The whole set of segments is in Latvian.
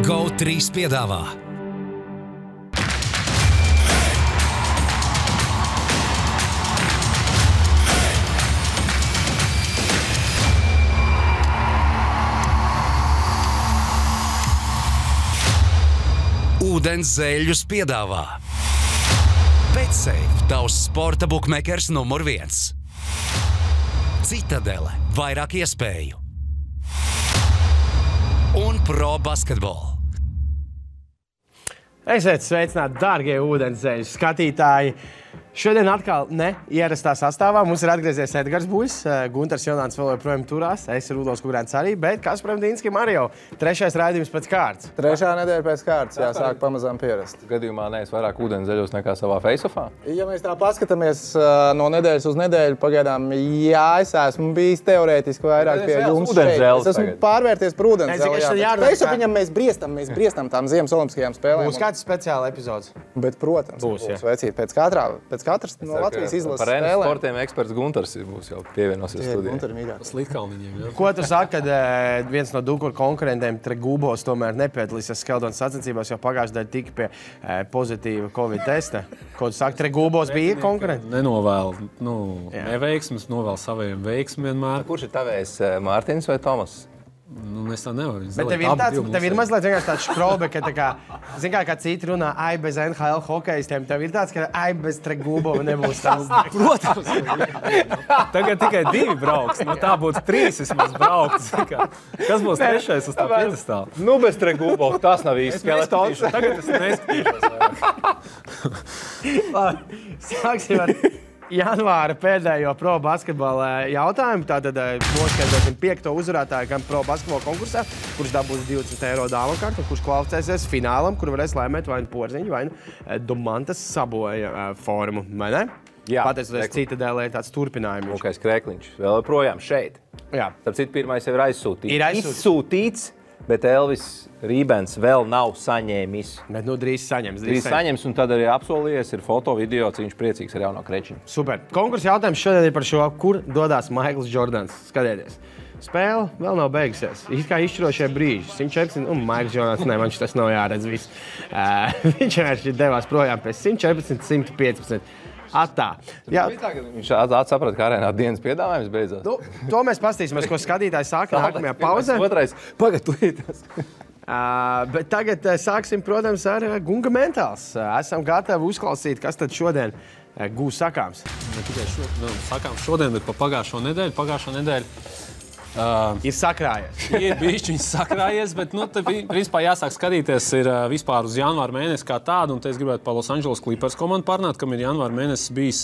GO3 piedāvā Ūdens zēļus piedāvā BetSafe, tavs sporta bukmekers numur 1. Citadele, vairāk iespēju. Un Pro Basketball. Esiet sveicināti, dārgie ūdenszeļu skatītāji! Šodien atkal neierastā sastāvā. Mums ir atgriezies Edgars Buļs, Guntars Jonāns vēl joprojām turās, es ir Rudolfs Kugrēns arī, bet Kasparam Dīnskim arī jau trešais raidījums pēc kārtas. Trešā nedēļa pēc kārtas, jāsāk pamazām pierast. Gadījumā neesi vairāk ūdenszeļos nekā savā face-offā? Ja mēs tā paskatāmies no nedēļas uz nedēļu, pagaidām, jā, es esmu bijis teorētiski vairāk pie jums šeit. Es esmu pārvērties par ūdenszeļu. Face-offiņam mēs briestam tām Ziemas olimpiskajām spēlēm. Būs kāds speciāla epizodes? Bet, protams, būs vecīt pēc katras no Latvijas izlases par spēlēm. Par sportiem eksperts Guntars būs jau pievienosies studijai. Slitkalniņiem, Ko tu saki, kad viens no Dukura konkurentiem Tregūbos tomēr nepiedalīsies Skeldonas sacensībās, jo pagājušajā daļā tika pie pozitīva Covid testa? Ko tu saki, Tregūbos bija konkurenti? Nenovēlu neveiksmes, novēlu saviem veiksmiem vienmēr. Kurš ir tavējs, Mārtiņš vai Tomas? Es tā nevaru. Bet tev ir mazliet vienkārši tāds škrobe, ka tā kā citi runā, ai bez NHL hokejistiem, tev ir tāds, ka ai bez Tregūbova nebūs tāds. Protams. Tagad tikai 2 brauks. Tā būtu 3 vismaz brauks. Kas būs trešais uz tā piedestāla? Nu, bez Tregūbova tas nav īsti skeletons. Tagad es neskatīšos. Sāksim ar janvāra pēdējo Pro Basketbola jautājumu. Tātad noskaidrosim 5. uzvarētāju gan Pro Basketbola konkursā, kurš dabūs 20 eiro dāvanu kartu, kurš kvalificēsies finālam, kur varēs laimēt vai nu Porziņu, vai nu Domantas Saboja formu, vai ne? Jā. Pateicoties Citadēlē tāds turpinājums. Lukais Krekliņš vēl projām šeit. Jā. Starp citu, pirmais jau ir aizsūtīts. Ir aizsūtīts. Izsūtīts, bet Elvis Rībens vēl nav saņēmis. Bet drīz saņems. Drīz saņems, un tad arī apsolījies, ir foto, video, cik viņš priecīgs ar jauno Krečiņu. Super. Konkursa jautājums šodien ir par šo, kur dodās Maikls Jordans. Skatieties. Spēle vēl nav beigusies. It kā izšķirošie brīži. 114, un Maikls Jordans, viņš tas nav jāredz viss. Viņš vienkārši devās projām pēc 114, 115. Atā. Jā. Viņš saprata, ka arēnā dienas piedāvājums beidzās. Nu, to mēs pastīsimies, ko skatītāji sāka nākamajā pauzē. Otrais, pagad. Bet tagad sāksim, protams, ar Gunga Mentāls. Esam gatavi uzklausīt, kas tad šodien gūs sakāms. Ne tikai sakāms šodien, bet pa pagājušo nedēļu. Pagājušo nedēļu ir sakrājies. Ir bišķiņš sakrājies, bet te principā jāsāk skatīties ir vispār uz janvāra mēnesi kā tādu, un te es gribētu par Los Angeles Clippers komandu parunāt, kam ir janvāra mēnesis bijis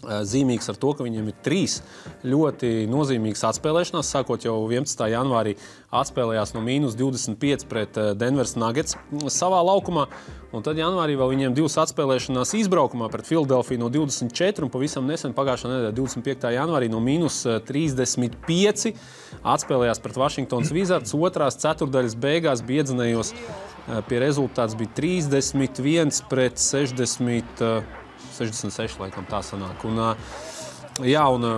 zīmīgs ar to, ka viņiem ir 3 ļoti nozīmīgas atspēlēšanās. Sākot jau 11. janvārī atspēlējās no -25 pret Denveras Nuggets savā laukumā. Un tad janvārī vēl viņiem 2 atspēlēšanās izbraukumā pret Filadelfiju no 24 un pavisam nesen pagājušā nedēļa 25. janvārī no -35 atspēlējās pret Washingtonas Wizards. Otrās ceturdaļas beigās biedzinējos pie rezultāts bija 31 pret 66, laikam tā sanāk. Un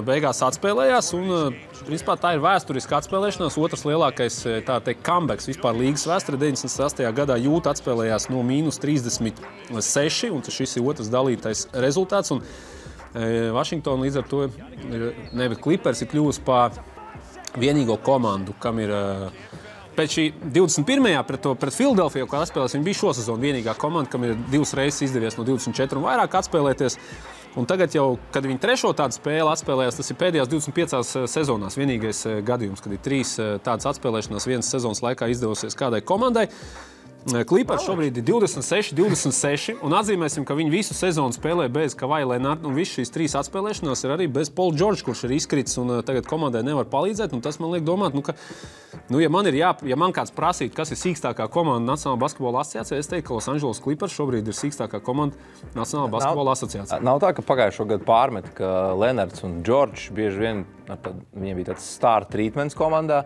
beigās atspēlējās, un principā tā ir vēsturiska atspēlēšanās. Otrs lielākais, tā teikt, comebacks vispār līgas vēsturē. 98. gadā Jūta atspēlējās no -36, un šis ir otrs dalītais rezultāts. Un Washington līdz ar to, Clippers ir kļuvusi par vienīgo komandu, kam ir pēc šī 21. pret Filadelfiju, kā atspēlēs, viņi bija šo sezonu vienīgā komanda, kam ir 2 reizes izdevies no 24 un vairāk atspēlēties. Un tagad jau, kad viņi 3. tādu spēli atspēlējās, tas ir pēdējās 25 sezonās vienīgais gadījums, kad ir 3 tādas atspēlēšanās vienas sezonas laikā izdevusies kādai komandai. Clippers šobrīd ir 26, un atzīmēsim, ka viņi visu sezonu spēlē bez Kawhi Leonard, un visas šīs 3 atspēlēšanās ir arī bez Paul George, kurš ir izkritis, un tagad komandai nevar palīdzēt, un tas man liek domāt, ja man kāds prasītu, kas ir sīkstākā komanda Nacionālā basketbola asociācijā, es teiktu, ka Los Angeles Clippers šobrīd ir sīkstākā komanda Nacionālā basketbola asociācijā. Nav tā, ka pagājušo gadu pārmet, ka Leonards un George bieži vien, viņiem bija tāds star treatments komandā,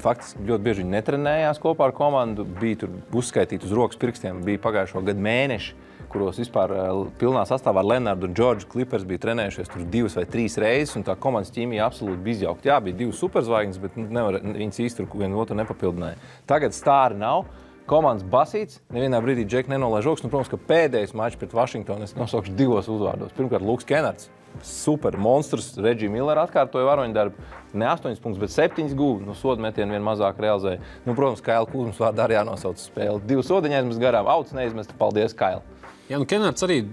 faktiski ļoti bieži viņi netrenējās kopā ar komandu, bija tur uzskaitīti uz rokas pirkstiem, bija pagājušo gadu mēneši, kuros vispār pilnā sastāvā ar Lenardu un Džordžu Clippers bija trenējušies tur 2 vai 3 reizes, un tā komandas ķīmija absolūti bija izjaukta. Jā, bija 2 superzvaigznes, bet viņas īsti tur vienu otru nepapildināja. Tagad stāri nav. Komandas basīts, nevienā brīdī Džek nenolaiž rokas, protams, ka pēdējais mačs pret Vašingtonu es nosaukšu 2 uzvārdos. Pirmkārt, Luks Kenards, super monstrs, Reggie Miller atkārtoja varoņdarbu, ne 8 punktus, bet 7 guva, sodu metienu vien mazāk realizēja. Protams, Kaila Kuzmas vārdā arī jānosauc spēli. 2 sodiņi aizmest garām, auts neizmest, paldies, Kaila. Jā, Kenards arī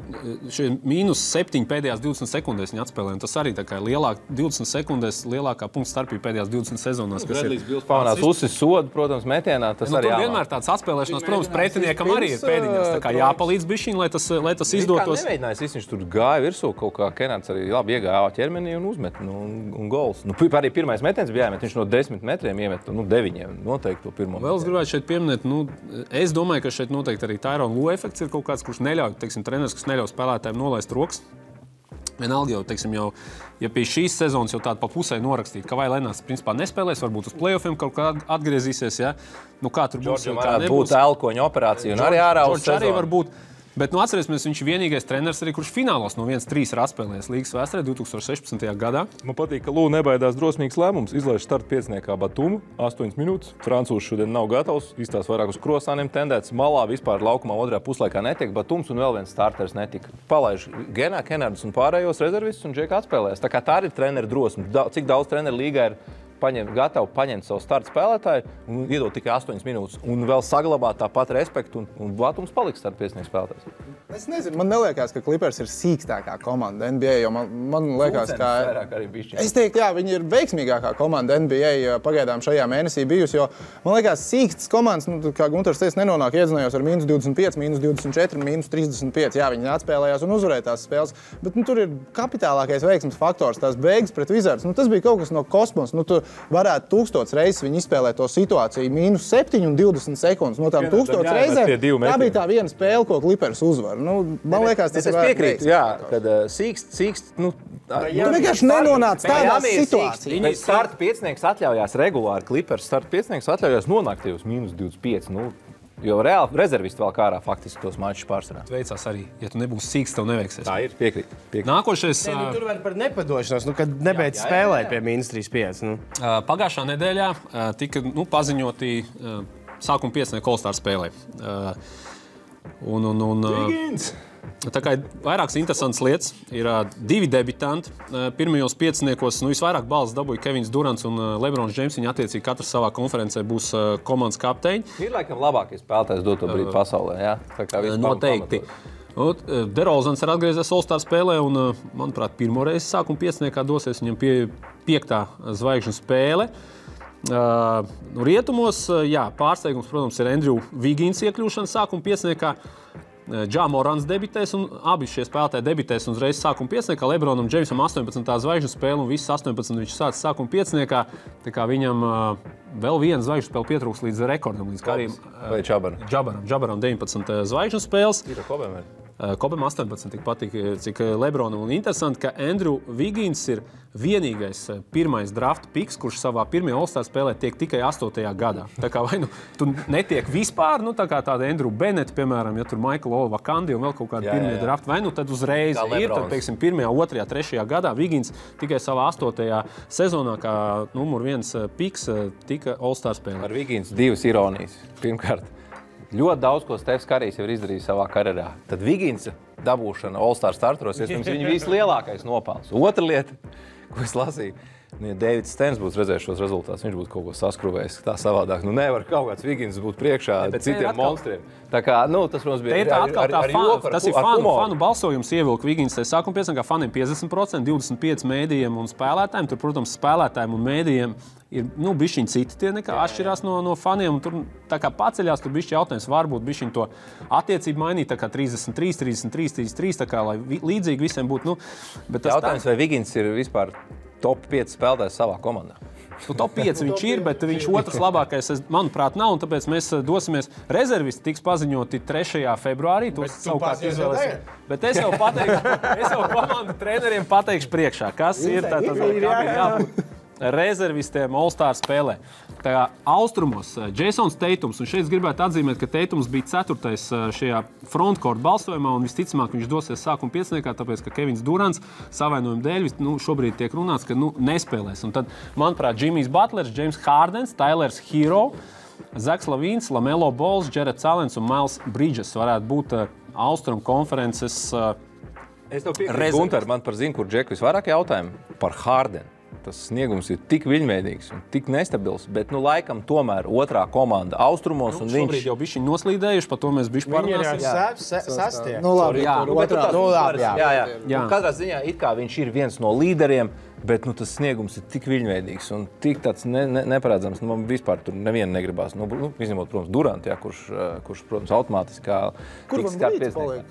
-7 pēdējās 20 sekundēs viņa atspēlēja. Tas arī tā kā 20 sekundēs lielākā punktu starpība pēdējās 20 sezonās. Bredlijs Bils pamanās uzsis sodu, protams, metienā. Tas arī tur vienmēr tāds atspēlēšanās, protams, pretiniekam arī ir pēdiņās. Tā kā jāpalīdz bišķiņ, lai tas izdotos. Kā nemēģinājis, viņš tur gāja virsū kaut kā. Kenards arī labi iegāja ķermenī un uzmet un gols. Arī pirmais metiens bija jāmet. Viņš no 10 metriem iemet 9 noteikti to pirmo. Vēl es gribētu šeit pieminēt, es domāju, ka šeit noteikti arī Tyrone Lue efekts ir kaut kāds, kurš neļauj, treneris, kas neļauj spēlētājiem nolaist rokas. Vienalga jau, ja pie šīs sezonas jau tāda pa pusē norakstīt, ka vai Lenārds principā nespēlēs, varbūt uz play-offiem kaut kā atgriezīsies, ja? Kā tur būs, jau kā nebūs. Būtu elkoņa operācija un arī ārā uz sezonu. Arī var būt. Bet, atcerēsimies, viņš ir vienīgais treneris arī, kurš finālos no 1-3 ir atspēlējis līgas vēsturē 2016. gadā. Man patīk, ka Lū nebaidās drosmīgs lēmums. Izlaiž starta pieciniekā Batumu, 8 minūtes. Francūzs šodien nav gatavs, izstās vairāk uz krosāniem tendēts. Malā vispār laukumā otrajā puslaikā netiek Batums un vēl viens starters netika. Palaiž Kenardus un pārējos rezervistus un Džeka atspēlēs. Tā kā tā ir treneru drosme. Cik daudz treneru līgā ir gatavi paņemt savu starta spēlētāju un iedot tikai 8 minūtes un vēl saglabāt tāpat respektu un Batums paliks starta piecinieks spēlētājs. Es nezinu, man neliekas, ka Clippers ir sīkstākā komanda NBA, jo man liekas, ka es teiktu, jā, viņi ir veiksmīgākā komanda NBA pagaidām šajā mēnesī bijusi, jo man liekas, sīkstas komandas, kā Gunters teica, nenonāk iedzinājos ar -25, -24, -35. Jā, viņi atspēlējās un uzvarēja tās spēles, bet tur ir kapitālākais veiksmes faktors, tās beigas pret Wizards. Tas bija kaut kas no kosmosa. Tu varētu 1000 reizes viņi izspēlēt to situāciju -7 un 20 sekundes. No tām 1000 reizēm tā bija tā viena spēle, ko Clippers uzvar. Man liekas, tas ir piekrītu, jā, kad sīkst, tu vienkārši nenonāc tādā situācijā. Starta piecinieks atļaujās regulāri, Clippers starta piecinieks atļaujās nonākt uz -25. Jo reāli rezervisti vēl kārā faktiski tos mačus pārsvarā. Veicās arī, ja tu nebūsi sīks, tev neveiksies. Tā ir, piekrīt. Nākošais... Tur var par nepadošanos, kad nebeidz spēlēt pie -35. Pagājušā nedēļā tika paziņoti sākuma piecinieki All-Star spēlē. Tā kā ir vairākas interesantas lietas. Ir 2 debitanti. Pirmajos pieciniekos visvairāk balvas dabūja Kevins Durants un Lebrons Džeims. Viņi attiecīgi katrs savā konferencē būs komandas kapteiņi. Ir laikam labākais spēlētājs doto brīdi pasaulē, jā? Tā kā noteikti. DeRozans ir atgriezies All-Star spēlē un, manuprāt, pirmo reizi sākuma pieciniekā dosies viņam 5. zvaigžņu spēle. Rietumos, jā, pārsteigums, protams, ir Andrew Wiggins iekļūšana sākuma pieciniekā. Ja Morants debitēs un abi šie spēlētāji debitēs un uzreiz sākuma pieciniekā. Lebronam Džeimsam 18. zvaigžņu spēle un visas 18 viņš sāca sākuma pieciniekā. Tā kā viņam vēl viena zvaigžņu spēle pietrūks līdz rekordam. Līdz Karim Džabaram 19 zvaigžņu spēles. Ir Kobem arī. Kobem 18 tik patīk, cik Lebronam. Un interesanti, ka Andrew Wiggins ir vienīgais pirmais draft piks, kurš savā pirmajā All-Star spēlē tiek tikai 8. gadā. Tā kā vai tu netiek vispār, tā kā tāda Andrew Bennett, piemēram, ja tur Michael Olava-Kandi un vēl kaut kādi pirmie drafti, vai tad uzreiz ir, tad, teiksim, 1., 2., 3. gadā Wiggins tikai savā 8. sezonā kā numur 1 piks tika All-Star spēlē. Ar Wiggins 2 ironijas. Pirmkārt, ļoti daudz, ko Stefs Karijs jau ir izdarījis savā karjerā. Tad Wiggins dabūšana All-Star starteros, iespējams, viņa vislielākais nopelns. Otra lieta, ko es lasīju, ja Davids Stens būtu redzējis šos rezultātus, viņš būtu kaut ko saskruvējis tā savādāk. Nevar kaut kāds Wiggins būt priekšā citiem monstriem. Tā kā, tas, protams, bija tas ir fanu balsojums ievilka Wiggins. Sākuma pieciniekā faniem 50%, 25 mēdījiem un spēlētājiem. Tur, protams, spēlētājiem un mēdījiem ir bišķiņi citi tie nekā atšķirās no faniem. Un tur tā kā paceļās, tur bišķi jautājums varbūt bišķiņi to attiecību mainīt, tā kā 33, 33, 33, tā kā, lai līdzīgi visiem būtu. Jautājums, vai Wiggins ir vispār top 5 spēlētājs savā komandā? Top 5 viņš ir, bet viņš otrs labākais, manuprāt, nav. Un tāpēc mēs dosimies. Rezervisti tiks paziņoti 3. februārī. Tos savukārt izvēlēsim. Bet es jau komandu treneriem pateikšu priekšā, kas ir. Tātad, kā ir jābūt. rezervistiem All-Star spēlē. Tā kā austrumos Jasons Teitums, un šeit gribētu atzīmēt, ka Teitums bija 4. šajā frontcourt balsojumā, un visticamāk viņš dosies sākuma pieciniekā, tāpēc, ka Kevins Durants savainojuma dēļ šobrīd tiek runāts, ka nespēlēs. Un tad, manuprāt, Jimmys Butlers, James Hardens, Tylers Hero, Zaks Lavīns, Lamelo Balls, Jareds Allens un Miles Bridges varētu būt Austrum konferences Es tev piekrītu, Gunter, man par zinu, kur Džeku visvairāk jautājumu par Hardenu. Tas sniegums ir tik viļņveidīgs un tik nestabils, bet, laikam, tomēr otrā komanda austrumos un viņš... Šobrīd jau bišķi noslīdējuši, par to mēs bišķi parunāsim. Viņi ir sastie. Jā. Katrā ziņā it kā viņš ir viens no līderiem, bet tas sniegums ir tik viļņveidīgs un tik tāds neparedzams. Man vispār tur nevienu negribās. Izņemot, protams, Durantu, kurš, protams, automātiski kā... Kur man līdz paliek?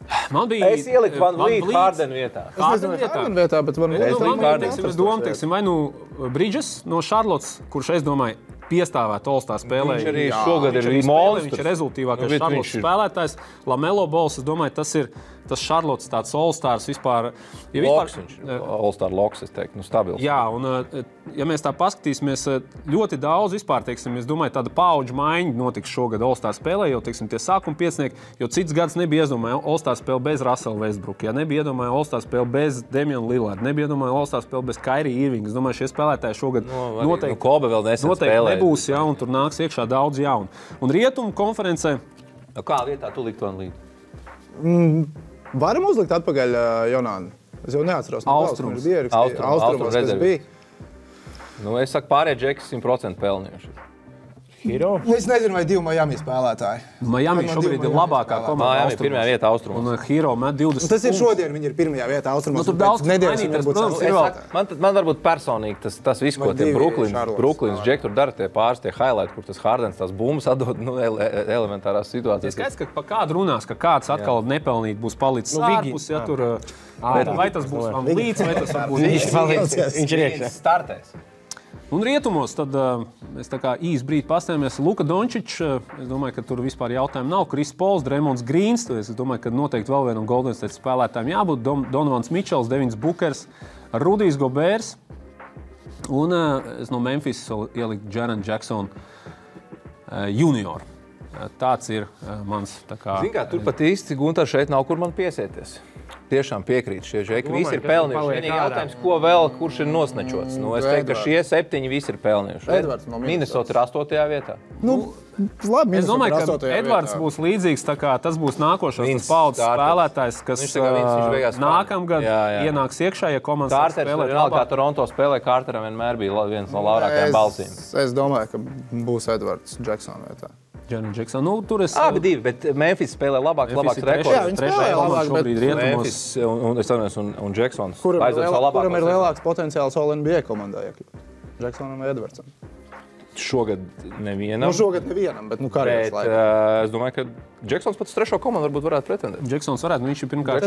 Es ieliku Van Vliet Hardenu vietā. Hardenu vietā, bet man es domāju, vai Bridges no Charlottes, kurš, es domāju, piestāvēt All-Star spēlē. Viņš arī šogad ir monstrs. Viņš ir rezultīvākais Charlottes spēlētājs. Lamelo Balls, es domāju, tas ir tas Charlottes tāds All-Stars vispār. Loks viņš ir. All-Star loks, es teiktu, stabils. Jā, un ja mēs tā paskatīsimies, ļoti daudz vispār, teiksim, es domāju, tāda paudžu maiņa notiks šogad All-Star spēlē, jo, teiksim, tie sākuma piecinieki, jo cits gads nebija iedomāja All-Star spēle bez Russell Westbrook, ja nebija iedomāja All-Star spēle bez Damian Lillard, nebija iedomāja All-Star spēle bez Kyrie Irving. Es domāju, šie spēlētāji šogad noteikti, Kobe vēl nesen spēlē. Nebūs, ja, un tur nāks iekšā daudz jaunu. Un rietumu konferencē... Kā vietā tu likt Van Vliet? Varam uzlikt atpakaļ Jonānu? Es jau neatceros. Austrums. Austrumos, kas bija. Es saku, pārējie Džeki 100% pelnījuši. Hero? Es nezinu, vai 2 Miami spēlētāji. Miami šobrīd ir labākā komanda austrumos. Pirmajā vietā austrumos. Un Hero met 20. Tas ir šodien, viņi ir pirmajā vietā austrumos. Tur daudz Man varbūt personīgi tas viss, ko tie Brooklyns Džeki tur dara, tie pāris, tie highlight, kur tas Hardens tās bumbas atdod elementārās situācijas. Es skaidrs, ka pa kādu runās, ka kāds atkal nepelnīt būs palicis ārpus, ja tur... Vai tas būs Van Vliets, vai tas būs... Viņš ir iekšā. Startēs. Un rietumos tad mēs tā kā īsti brīdi pastājamies. Luka Dončičs, es domāju, ka tur vispār jautājumu nav. Chris Pauls, Draymonds Greens, es domāju, ka noteikti vēl vienam Golden State spēlētājiem jābūt. Donovans Mitchells, Devins Bookers, Rudijs Gobērs un es no Memphis ieliku Jaren Jackson junior. Tāds ir mans tā kā... Zin kā, tur pat īsti, Gunter, šeit nav, kur man piesieties. Tiešām piekrīt, šie Džeki visi ir pelnījuši. Vienīgi jautājums, ko vēl, kurš ir nosnečots. Es teiktu, ka šie 7 visi ir pelnījuši. Minnesota ir 8. vietā. Labi, es domāju, ka Edvards būs līdzīgs, tā kā tas būs nākošais paudzes spēlētājs, kas nākamgad ienāks iekšā, ja komandas spēlē labāk. Kā Toronto spēlē, Carteram vienmēr bija viens no labākajiem balsīm. Es domāju, ka būs Edvards Jackson vietā. Jackson. Tur es... Abi divi, bet Memphis spēlē labāks rekords. Jā, viņi spēlē labāk, bet Memphis un Jacksons. Kuram ir lielāks potenciāls All-NBA komandā, Jacksonam vai Edvardsam? Šogad nevienam. Šogad nevienam, bet karjeras laikā. Es domāju, ka Jacksons pats 3. komandu varbūt varētu pretendēt. Jacksons varētu, viņš ir pirmkārt...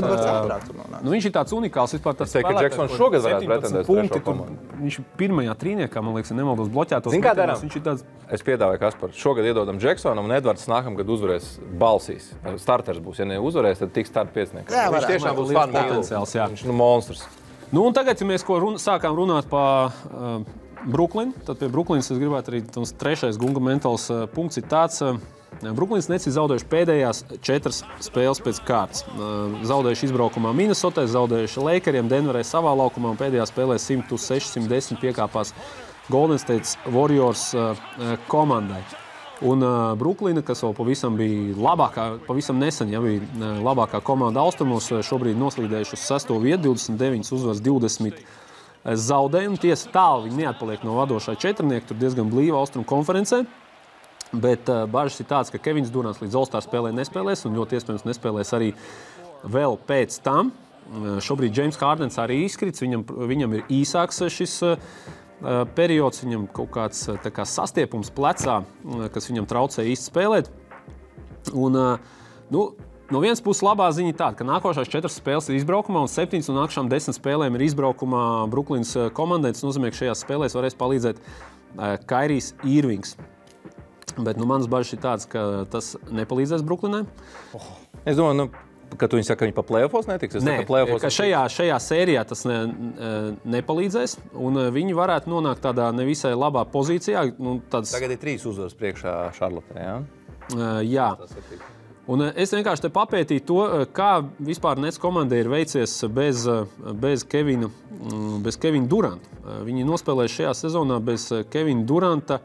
viņš ir tāds unikāls vispār tas spēlētājs. Es teiktu, ka Jacksons šogad varētu pretendēt 3. komandu. Viņš ir pirmajā trīniekā, man liekas, nemaldos bloķētos. Zin kā darām? Es piedāvāju, Kaspar, šogad iedodam Jacksonam un Edvards nākamgad uzvarēs balsīs. Starters būs, ja neuzvarēs, tad tiks start piecinieks. Viņš tiešām būs potenciāls, jā. Viņš monstrs. Un tagad, ja mēs sākām runāt par Brooklyn, tad pie Brooklynas es gribētu arī tas 3. Gunga mentāls punkts ir tāds. Brooklyns Nets ir zaudējuši pēdējās 4 spēles pēc kārtas. Zaudējuši izbraukumā Minnesotai, zaudējuši Lakeriem, Denverai savā laukumā un pēdējā spēlē 100-610 piekāpās Golden State Warriors komandai. Un Brooklyna, kas vēl pavisam bija labākā, pavisam nesen, bija labākā komanda austrumos, šobrīd noslīdējuši uz 6. vietu, 29 uzvaras, 20 zaudējumu. Tiesa tālu viņi neatpaliek no vadošā četrnieka, tur diezgan blīva austrumu konferencē. Bet bažas ir tāds, ka Kevins Durants līdz All-Star spēlē nespēlēs un ļoti iespējams nespēlēs arī vēl pēc tam. Šobrīd James Hardens arī izkrits, viņam ir īsāks šis periods, viņam kaut kāds tā kā sastiepums plecā, kas viņam traucē īsti spēlēt. Un, no vienas puses labā ziņa tāda, ka nākošās 4 spēles ir izbraukumā un 7 no nākamajām 10 spēlēm ir izbraukumā Brooklynas komandai. Tas nozīmē, ka šajās spēlēs varēs palīdzēt Kairijs Irvings. Bet manas bažas ir tādas, ka tas nepalīdzēs Brooklynai. Es domāju, Kad viņi saka, ka viņi pa play-offos netiks? Nē, ka šajā sērijā tas nepalīdzēs, un viņi varētu nonākt tādā nevisai labā pozīcijā. Tagad ir 3 uzvaras priekšā Šarlotē, jā? Jā. Un es vienkārši te papētīju to, kā vispār Nets komandai ir veicies bez Kevina Duranta. Viņi nospēlēja šajā sezonā bez Kevina Duranta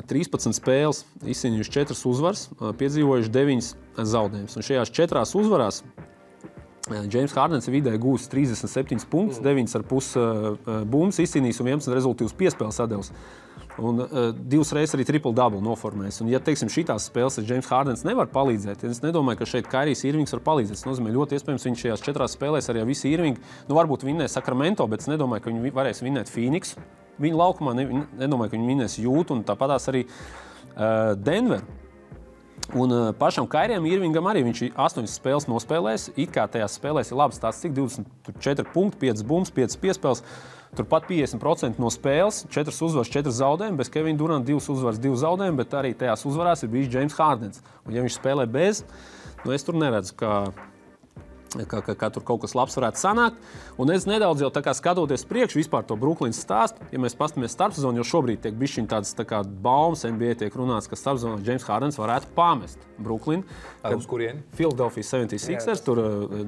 13 spēles, izcīnījuši 4 uzvaras, piedzīvojuši 9 zaudējumus. Un šajās 4 uzvarās James Hardens vidēji gūs 37 punktus, 9,5 bumbas izcīnījis un 11 rezultīvus piespēles atdevis. Un 2 reizes arī triple-double noformēs. Un, ja teiksim, šitās spēles James Hardens nevar palīdzēt, es nedomāju, ka šeit Kairijs Irvings var palīdzēt. Tas nozīmē, ļoti iespējams, viņš šajās 4 spēlēs arī visi Irvingi, varbūt vinnēs Sacramento, bet es nedomāju, ka viņi varēs vinnēt Phoenix. Viņa laukumā nedomāju, ka viņi vinnēs Jūtu un tāpatās arī Denver. Un pašam Kairijam Irvingam arī viņš 8 spēles nospēlēs. It kā tajās spēlēs ir labs tāds, cik 24 punkti, 5 bumbas, 5 piespēles. Turpat 50% no spēles, 4 uzvaras, 4 zaudējumi, bez Kevina Duranta 2 uzvaras, 2 zaudējumi, bet arī tajās uzvarās ir bijis James Hardens. Un ja viņš spēlē bez, es tur neredzu, ka tur kaut kas labs varētu sanākt. Un es nedaudz jau tā kā skatoties priekšu vispār to Brooklynas stāstu, ja mēs paskatāmies starpsezonu, jo šobrīd tiek bišķiņ tādas tā kā baumas NBA tiek runāts, ka starpsezonā James Hardens varētu pamest Brooklynu. Uz kurieni? Philadelphia 76ers, tur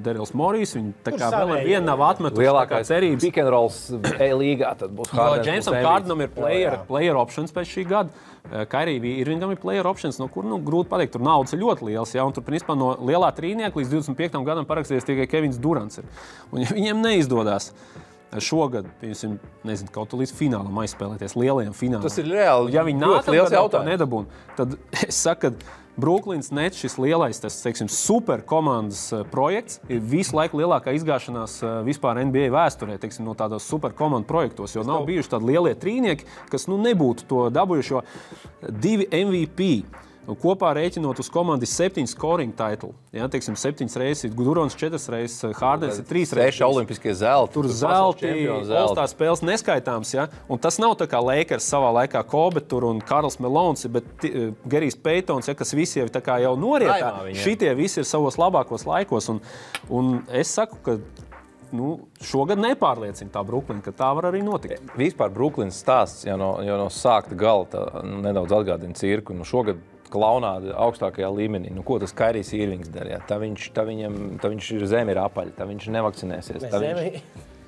Darryls Morrijs, viņi tā kā vēl ar vienu nav atmetuši lielākais cerības. Pick and rolls līgā tad būs Hardens. Jamesam Hardenam ir player options pēc šī gada. Kairijam Irvingam ir player options, no kur grūti pateikt, tur naudas ir ļoti liels, ja, un tur principā no lielā trīnieka līdz 25. gadam parakstījies tikai Kevins Durants ir. Un ja viņiem neizdodas šogad, nezinu, kaut līdz finālam aizspēlēties, lielajam finālam. Tas ir reāli ja viņi liels jautājums. Nedabūn, tad es saku, ka Brooklyns Nets šis lielais, tas, teiksim, super komandas projekts ir visu laiku lielākā izgāšanās vispār NBA vēsturē, teiksim, no tādos super komandu projektos, jo nav bijuši tādi lielie trīnieki, kas nebūtu to dabūjuši, jo 2 MVP. Kopā rēķinot uz komandas 7 scoring title. Ja, teiksim, 7 reizes, Durants 4 reizes, Hardens 3 reizes. 6 olimpiskie zelti. Tur zelti, All-Star spēles neskaitāms. Ja? Un tas nav tā kā Lakers savā laikā Kobe tur un Karls Melons, bet Gerijs Paytons, ja, kas visi jau tā kā jau norietā. Šitie visi ir savos labākos laikos. Un es saku, ka šogad nepārliecina tā Brooklyna, ka tā var arī notikt. Vispār Brooklynas stāsts jau no sākta gala nedaudz atgādina cirku. Šogad klaunādi augstākajā līmenī. Ko tas Kairijs Irvings darīja? Tā viņš ir zemi ir apaļi, tā viņš nevakcinēsies.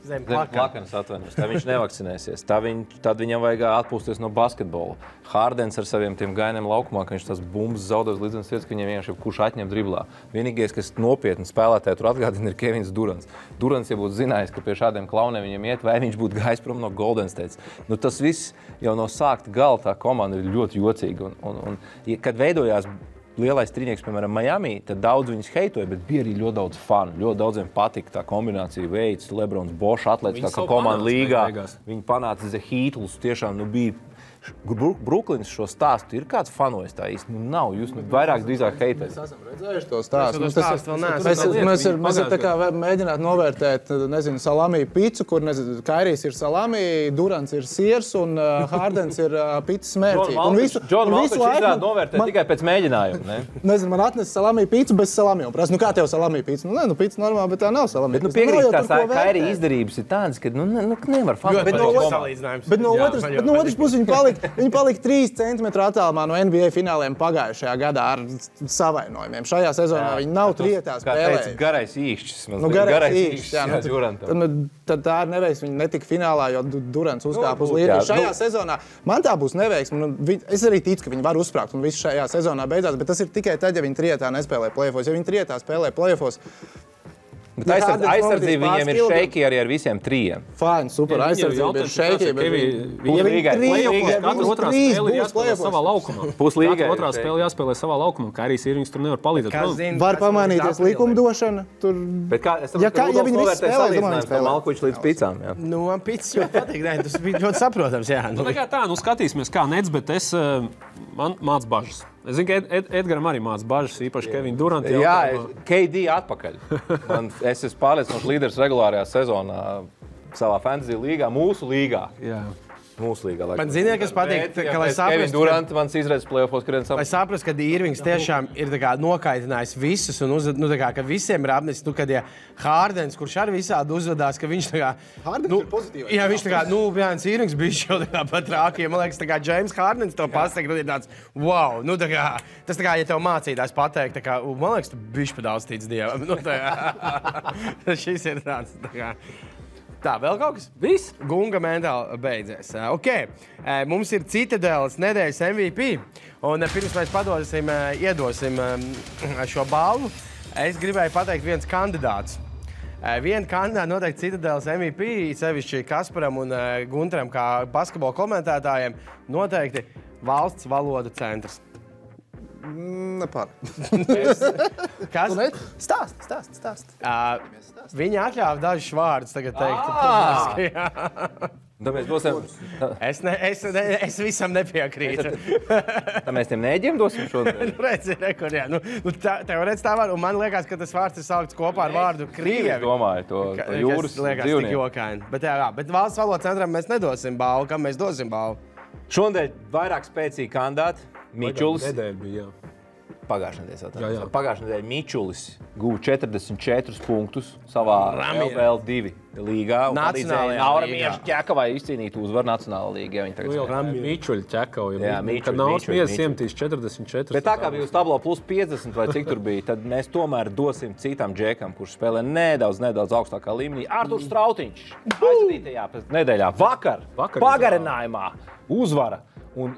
Zem plakanas atvainojas, tā viņš nevakcinēsies. Tad viņam vajag atpūsties no basketbola. Hardens ar saviem tiem gainiem laukumā, ka viņš tās bumbas zaudēs līdz vietas, ka viņam vienkārši kurš atņem driblā. Vienīgais, kas nopietni spēlētāji tur atgādina, ir Kevins Durants. Durants, ja būtu zinājis, ka pie šādiem klauniem viņam iet, vai viņš būtu gājis prom no Golden State. Tas viss jau no sākta gala tā komanda ir ļoti jocīga. Un kad veidojās lielais trīnieks, piemēram, Miami, tad daudz viņus heitoja, bet bija arī ļoti daudz fanu. Ļoti daudziem patika tā kombinācija Veids, Lebrons, Bošs, atlētiskā komanda līgā. Viņi panāca Heatlus, tiešām bija. Brooklyns šo stāstu ir kāds fanojis tā īsti? Nav, jūs vairāk drīzāk heitējat. Mēs esam redzējuši to stāstu. Mēs tā kā mēģināt novērtēt, nezinu, salami picu, kur, nezinu, Kairijs ir salami, Durants ir siers un Hardens ir picas mērķī. John Malkovich izrāda novērtēt tikai pēc mēģinājuma, ne? Nezinu, man atnes salami picu bez salami. Un prasa, kā tev salami pica? Pica normāli, bet tā nav salami. Bet piekrīt, tās Kairija izdarības ir tādas, ka nevar fanot. Bet no otras puses viņi palika 3 centimetru attālumā no NBA fināliem pagājušajā gadā ar savainojumiem. Šajā sezonā viņi nav trietā spēlējuši. Garais īšķis. Garais īšķis. Tad tā ir neveiksme. Viņi netika finālā, jo Durants uzkāpa uz līniju. Šajā sezonā man tā būs neveiksme. Es arī ticu, ka viņi var uzsprāgt un viss šajā sezonā beidzās, bet tas ir tikai tad, ja viņi trietā nespēlē play-offos. Ja viņi trietā spēlē play-offos, aizsardzība viņiem ir šeiki arī ar visiem 3. Fine, super, aizsardzība ir šeiki. Katra otrā spēle jāspēlē savā laukumā. Puslīgai. Katra otrā spēle jāspēlē savā laukumā. Kairijs Irvings tur nevar palīdzēt. Var pamainīties likumdošana. Bet kā, es saprotu, ka Rudolfs novērtē salīdzinājumu Malkovičs līdz picām. Man picis ļoti patīk. Tas bija ļoti saprotams. Skatīsimies kā Nets, bet man māc bažas. Es zinu, ka Edgaram arī māc bažas, īpaši Kevina Duranta. Jā, KD atpakaļ. Es esmu pārliecinoši līderis regulārajā sezonā savā fantasy līgā, mūsu līgā. Jā. Mūsu līgā. Man ziniet, kas patīk, ka, lai saprastu... Kevin Durant mans izredzes play-offos krien Lai saprastu, ka Irvings tiešām ir nokaitinājis visus un ka visiem ir apnicis, kad Hārdens, kurš arī visādi uzvedās, ka viņš Hārdens ir pozitīvais. Jā, viņš Jānis Irvings bija šo pat rākiem. Man liekas, James Hārdens to pasaka, ir tāds, wow, tas ja tev mācītājs pateikt, man liekas, tu bišķi pa daudz tic Dievam. Šis ir tāds, Tā, vēl kaut kas? Viss. Gunga mentāli beidzies. Mums ir Citadeles nedēļas MVP, un pirms mēs iedosim šo balvu, es gribēju pateikt viens kandidāts. Vienu kandidātu noteikti Citadeles MVP, sevišķi Kasparam un Gunteram, kā basketbola komentētājiem, noteikti valsts valodu centrs. Nepār. Kas? Stāst. Viņi atļāva dažus vārdus tagad teikt. Tad mēs dosim... Es visam nepiekrītu. Tad mēs tiem nēģiem dosim šodien? Redzi, rekur, jā. Teorētiski tā var, un man liekas, ka tas vārds ir saukts kopā ar vārdu Krievi. Es domāju, to jūras dzīvnieku. Bet valsts valodas centram mēs nedosim balvu. Kam mēs dosim balvu? Šodien vairāk spēcīgi kandidāti. Mičulis. Nedēļa bija, Pagājušajā nedēļā Mičulis guva 44 punktus savā LBL2 līgā. Nacionālajā līgā. Ķekavai izcīnīt uzvaru Nacionālajā līgā. Mičuļi ķekauja. Jā, Kad Nauts Miezis iemetīs 44. Bet tā kā bija uz tablo plus 50 vai cik tur bija, tad mēs tomēr dosim citam džekam, kurš spēlē nedaudz augstākā līmenī. Arturs Strautiņš aizvītajā nedēļā vakar pagarinājumā uzvara un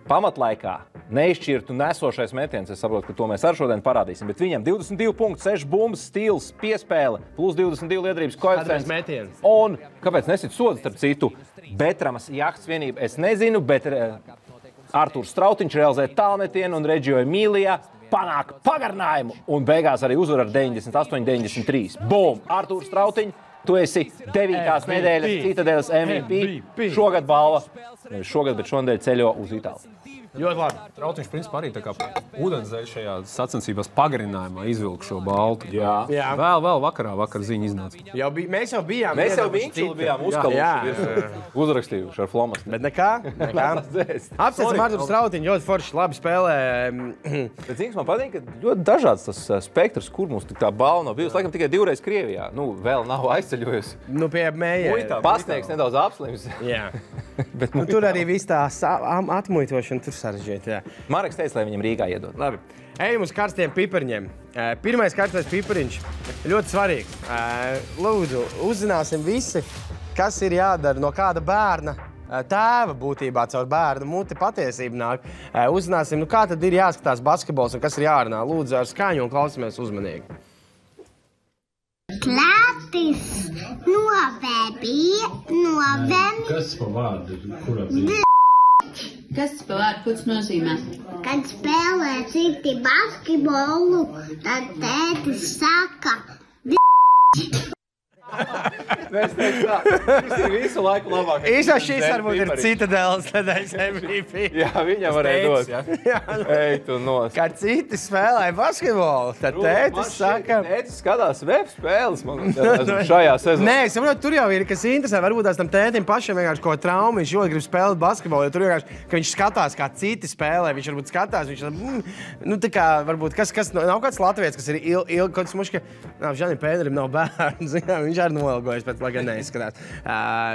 pamatlaikā neizšķirtu nesošais metiens. Es saprotu, ka to mēs ar šodien parādīsim. Bet viņam 22 punkti, 6 bumbas, stils, piespēle, plus 22 liederības koeficients. Un kāpēc nesit sodu starp citu? Betramas jahtas vienība, es nezinu, bet Arturs Strautiņš realizē tālmetienu un Reģio Emīlijā panāk pagarinājumu. Un beigās arī uzvar ar 98-93. Bum! Arturs Strautiņš, tu esi 9. nedēļas Citadeles MVP. Šogad balva. Šogad, bet šonadēļ ceļo uz Itāliju. Ļoti labi. Strautiņš principā arī tā kā ūdenszeļ šajā sacensībās pagarinājumā izvilka šo baltu. Jā. Vēl vakar ziņa iznāca. Mēs jau bijām. Mēs jau bijām uzkaluši, uzrakstījuši ar flomastu. Bet nekā. Apsveicam Arturu Strautiņu, ļoti forši, labi spēlē. Bet zināms, man patīk, ka ļoti dažāds tas spektrs, kur mums tā balva nav bijusi. Laikam tikai 2 reizes Krievijā. Vēl nav aizceļojusi. Pie mējiem. Pasniegs nedaudz apslims. Jā. Tur arī viss tā atmuitošana tur sarežģīta. Mareks teica, lai viņam Rīgā iedod. Labi. Ejam uz karstiem pipariņiem. Pirmais karstais pipariņš ļoti svarīgi. Lūdzu, uzzināsim visi, kas ir jādara no kāda bērna tēva būtībā caur bērnu muti patiesību nāk. Uzzināsim, kā tad ir jāskatās basketbols un kas ir jārunā. Lūdzu, ar skaņu un klausamies uzmanīgi. Klātis novembrī. Kas pa vārdu? Kura bija? Kas pa vārdu? Ko tas nozīmē? Kad spēlē citi basketbolu, tad tētis saka Mēs teiktu tā, šis ir visu laiku labāk. Īsā šis varbūt ir Citadeles nedēļas MVP. Jā, viņam varēja dot. Ej, tu nos. Kad citi spēlē basketbolu, tad tētis saka... Tētis skatās web spēles, man šajā sezonā. Nē, es saprotu, tur jau ir, kas interesē. Varbūt tās tam tētim pašam vienkārši ko traumu, viņš ļoti grib spēlēt basketbolu, jo tur vienkārši, ka viņš skatās, kā citi spēlē, viņš varbūt skatās, viņš tā kā, varbūt, kas nav kāds latviets, kas ir ilgi, kaut kas muška, Žanim Pēderim nav bērns, viņš arī noilgojas, bet lai gan neizskatās.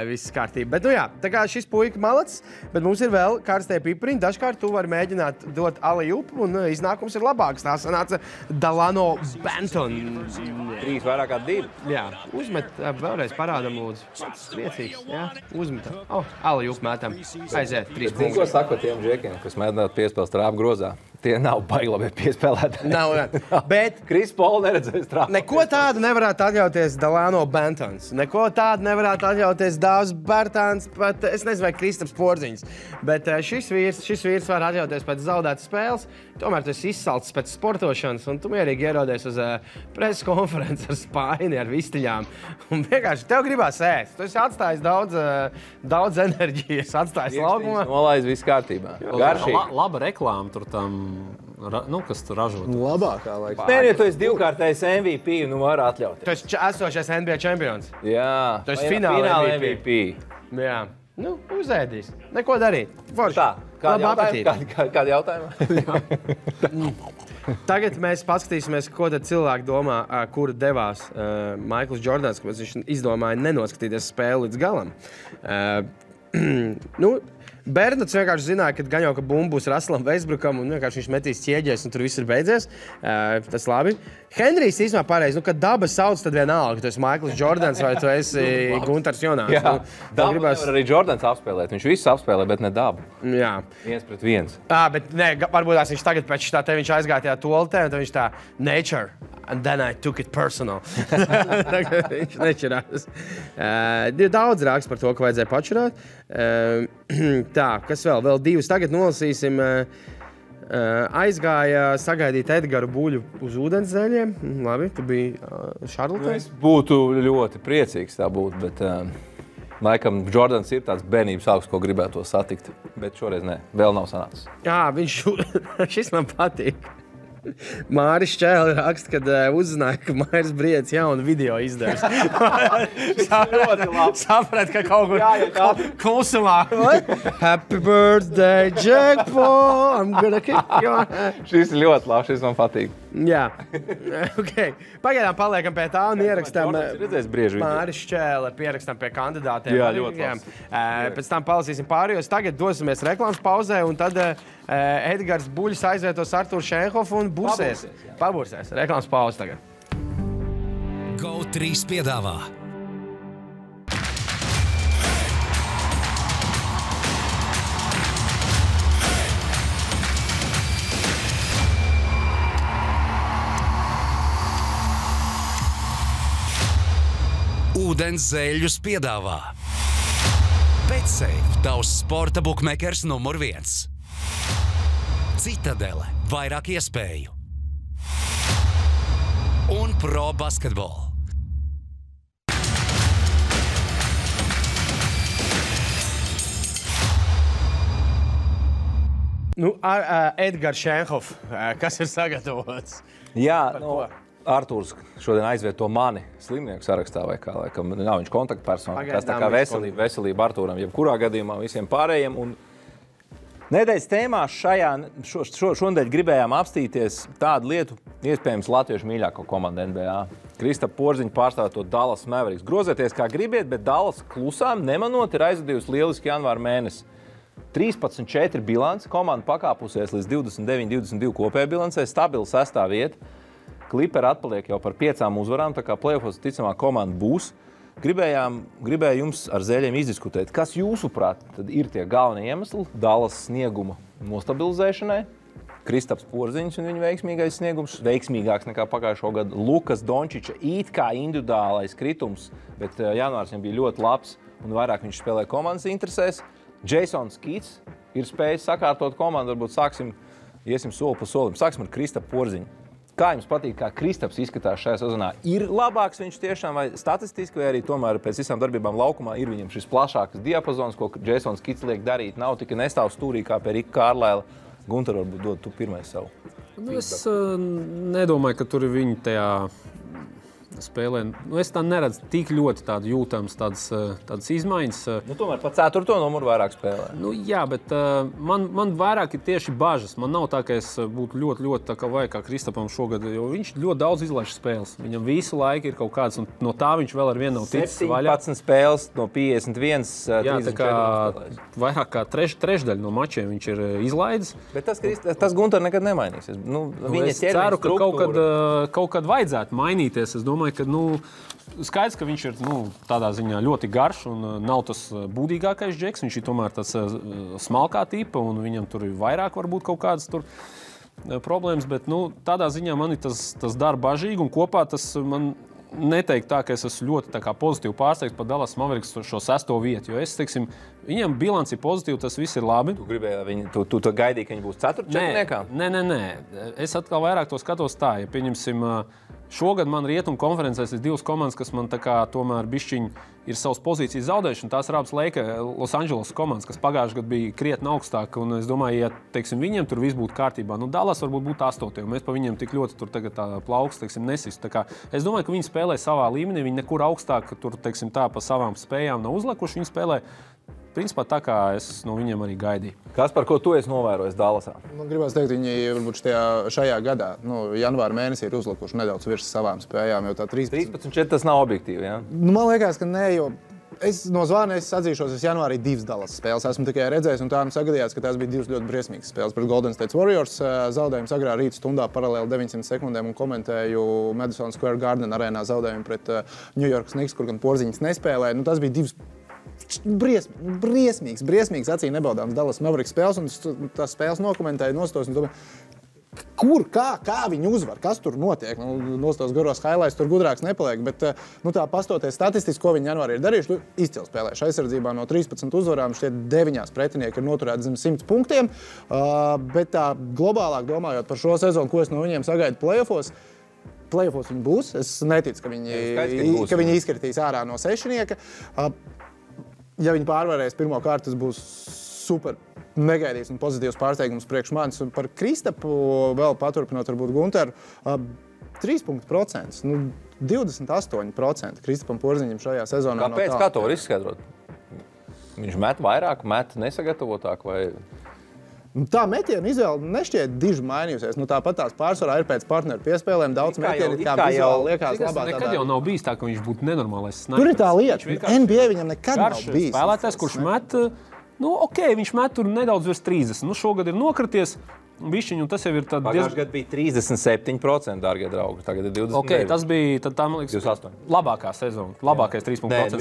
Viss kārtība. Bet, jā, tā kā šis puika malacis, bet mums ir vēl karstie pipariņi. Dažkārt tu vari mēģināt dot alley-oop, un iznākums ir labāks. Tā sanāca Delano Banton. 3 vairāk kā 2. Jā, uzmet, vēlreiz parādam, lūdzu. Priecīgs, jā, uzmet. Alley-oop mētam. Aiziet, 3 punkti. Ko saka tiem džekiem, kas mēģināt piespēlēt trāpu grozā? Tie nav baigi labi piespēlētāji. Nav. Bet Kris Paul neredzēs trāpu. Neko tādu nevarētu atļauties Delano Bantons. Neko tādu nevarētu atļauties Dāvs Bērtāns, pat es nezinu, vai Kristaps Porziņš. Bet šis vīrs var atļauties pēc zaudētas spēles. Tomēr tu esi izsalcis pēc sportošanas, un tu mierīgi ierodies uz preses konferenci ar spaini, ar vistiļām. Un vienkārši tev gribās ēst. Tu esi atstājis daudz enerģijas, atstājis laukumā. Nolaiz viss kārtībā. Garšīgi. Laba reklāma tur tam, kas tur ražot. Labākā laikā. Nē, ja tu esi 2-kārtais MVP, var atļauties. Tu esi esošais NBA čempions. Jā. Tu esi fināla MVP. Jā. Uzēdīs. Neko darīt. Forši. Kādi jautājumi? Tagad mēs paskatīsimies, ko tad cilvēki domā, kur devās Maikls Jordans, kāpēc viņš izdomāja nenoskatīties spēli līdz galam. Bernards vienkārši zināja, ka gan jau, ka bumba būs Russellam Westbrookam un vienkārši viņš metīs ķieģēs un tur viss ir beidzies. Tas labi. Henrijs īstenībā pareizi, kad daba sauc, tad vienalga, ka tu esi Maikls Jordans vai tu esi Guntars Jonāns. Jā, dabu nevar arī Jordans apspēlēt. Viņš visu apspēlē, bet ne dabu. Jā. 1-1. Bet ne, varbūt viņš tagad pēc tā te viņš aizgāja tajā toaletē un tad viņš tā nature. And then I took it personal. Viņš nečirās. Daudz rāks par to, ka vajadzēja pačurāt. Tā, kas vēl? Vēl divas tagad nolasīsim. Aizgāja sagaidīt Edgaru Buļu uz ūdenszeļiem. Labi, tu biji Šarlotē. Es būtu ļoti priecīgs tā būt, bet laikam Jordans ir tāds bērnības augs, ko gribētu satikt. Bet šoreiz ne, vēl nav sanācis. Jā, šis man patīk. Māris Čēli raksta, kad uzzināja, ka Mairis Briedis jaunu video izdevis. Saprat, ka kaut kur klusumā. Happy birthday, Jackpot! I'm gonna kick you. Šis ir ļoti labs, šis man patīk. Jā. Okay. Pagaidām paliekam pie tā un ierakstām Māris Čēli, pierakstam pie kandidātiem. Jā, ļoti labs. Pēc tam palasīsim pārējos. Tagad dosimies reklāmas pauzē un tad Edgars Buļs aizvietos Arturu Šenhofu un pabursēs. Reklāmas pauze tagad. GO3 piedāvā. Ūdens zēļus piedāvā. BetSafe, tavs sporta bukmekers numur 1. Citadele, vairāk iespēju. Un Pro Basketball. Edgars Šenhof, kas ir sagatavots? Jā, Artūrs šodien aizvieto mani slimnieku sarakstā vai kā, laikam nav viņš kontaktpersona. Tas tā kā veselība Artūram, jebkurā gadījumā visiem pārējiem. Un nedēļas tēmā šonedēļ gribējām apstīties tādu lietu, iespējams Latviešu mīļāko komandu NBA. Kristapa Porziņa pārstāvot Dallas Mavericks. Grozieties kā gribiet, bet Dallas klusām nemanot ir aizvadījusi lieliski janvāra mēnesi. 13-4 bilance, komanda pakāpusies līdz 29-22 kopējā bilancē, stabila 6. vieta. Kliperi atpaliek jau par 5 uzvarām, tā kā play-offos ticamā komanda būs. Gribēju jums ar zēļiem izdiskutēt, kas jūsuprāt tad ir tie galvenie iemesli Dallas snieguma nostabilizēšanai. Kristaps Porziņš un viņa veiksmīgais sniegums, veiksmīgāks nekā pagājušo gadu. Lukas Dončiča it kā individuālais kritums, bet janvārs viņam bija ļoti labs un vairāk viņš spēlē komandas interesēs. Jasons Kids ir spējis sakārtot komandu, varbūt iesim soli pa solim. Sāksim ar Kristapu Porziņu. Kā jums patīk, kā Kristaps izskatās šajā sezonā? Ir labāks viņš tiešām vai statistiski, vai arī tomēr pēc visām darbībām laukumā ir viņam šis plašāks diapazons, ko Jasons Kids liek darīt? Nav tikai nestāv stūrī kā pie Rika Kārlaila. Gunter, varbūt dod tu pirmais savu. Es nedomāju, ka tur ir viņi tajā spēlē. Es tā neredzu tik ļoti tādu jūtams, tādas izmaiņas. Tomēr pa 4. numuru vairāk spēlē. Jā, bet man vairāk ir tieši bažas. Man nav tā, ka es būtu ļoti tā kā vajag kā Kristapam šogad, jo viņš ļoti daudz izlaiž spēles. Viņam visu laiku ir kaut kāds, un no tā viņš vēl ar vienu nav ticis vaļā. 17 spēles no 51, 34 spēlēs. Vairāk kā trešdaļa no mačiem viņš ir izlaidis. Bet tas Gunter nekad nemainīsies. Es ceru, ka kaut kad vajadzētu mainīties. Es domāju, ka skaidrs, ka viņš ir tādā ziņā ļoti garš un nav tas būdīgākais džeks. Viņš ir tomēr tāds smalkā tipa un viņam tur ir vairāk varbūt kaut kādas tur problēmas, bet tādā ziņā man ir tas dara bažīgi un kopā tas man neteikt tā, ka es esmu ļoti tā kā pozitīvi pārsteigts par Dallas Mavericks šo 6. vietu, jo es, teiksim, viņam bilanci ir pozitīva, tas viss ir labi. Tu gribēji, tu gaidīji, ka viņi būs 4. četrniekā? Nē. Es atkal vairāk to skatos tā, ja pieņemsim, šogad man rietumu konferencēs ir 2 komandas, kas man tā kā tomēr bišķiņi ir savas pozīcijas zaudējuši, un tās ir abas Los Angeles komandas, kas pagājušajā gadā bija krietni augstāk, un es domāju, ja, teiksim, viņiem tur viss būtu kārtībā, Dallas varbūt būtu 8. un mēs pa viņiem tik ļoti tur tagad tā plaukst, teiksim, nesist. Tā kā es domāju, ka viņi spēlē savā līmenī, viņi nekur augstāk tur, teiksim, tā pa savām spējām nav uzlikuši, viņi spēlē principā tā kā es no viņiem arī gaidīju. Kas par ko tu esi novērojis Dallasā? Gribētu teikt, viņi varbūt šajā gadā, janvāra mēnesī ir uzlikuši nedaudz virs savām spējām, jo tā 13-4 tas nav objektīvi, ja? Man liekas, ka nē, jo no zvana es atzīšos, es janvārī 2 Dallas spēles esmu tikai redzējis, un tā sagadījās, ka tās bija 2 ļoti briesmīgas spēles. Pret Golden State Warriors zaudējumu agrā rīta stundā paralēli 900 sekundēm un komentēju Madison Square Garden arēnā zaudējumu pret New York Knicks, kur gan Porziņš nespēlēja. Tas bija 2 briesmīgas acīm nebaudāmas Dallas Mavericks spēles, un tās spēles nokomentēja nostos, un kur, kā viņi uzvar, kas tur notiek. Nostos garos highlights tur gudrāks nepaliek, bet tā pastoties statistiski, ko viņi janvārī ir darījuši, izcils spēlējuši aizsardzībā no 13 uzvarām, šķiet 9 pretinieki ir noturēti zem 100 punktiem, bet tā globālāk domājot par šo sezonu, ko es no viņiem sagaidu playoffos viņi būs. Es neticu, ka viņi izkritīs ārā no sešnieka. Ja viņi pārvarēs pirmo kārtu, tas būs super negaidīts un pozitīvs pārsteigums priekš manis. Par Kristapu vēl paturpinot varbūt Gunteru, 3% 28% Kristapam Porziņam šajā sezonā. Kāpēc? Kā to var izskaidrot? Viņš met vairāk, met nesagatavotāk vai... Tā metiena izvēle nešķiet diži mainījusies. Tāpat tās pārsvarā ir pēc partneru piespēlēm daudz metieni, kā vizuāli liekas labā. Nekad jau nav bijis tā, ka viņš būtu nenormālais snipers. Tur ir tā lieta. NBA viņam nekad nav bijis. Spēlētājs, kurš met, viņš met tur nedaudz virs 30. Šogad ir nokrities. Bišķiņu, tas jau ir tad Pagājušajā gadā bija 37%, dārgie draugi. Tagad ir 29%. Tas bija tad, man liekas, 28. labākā sezona. Labākais 3%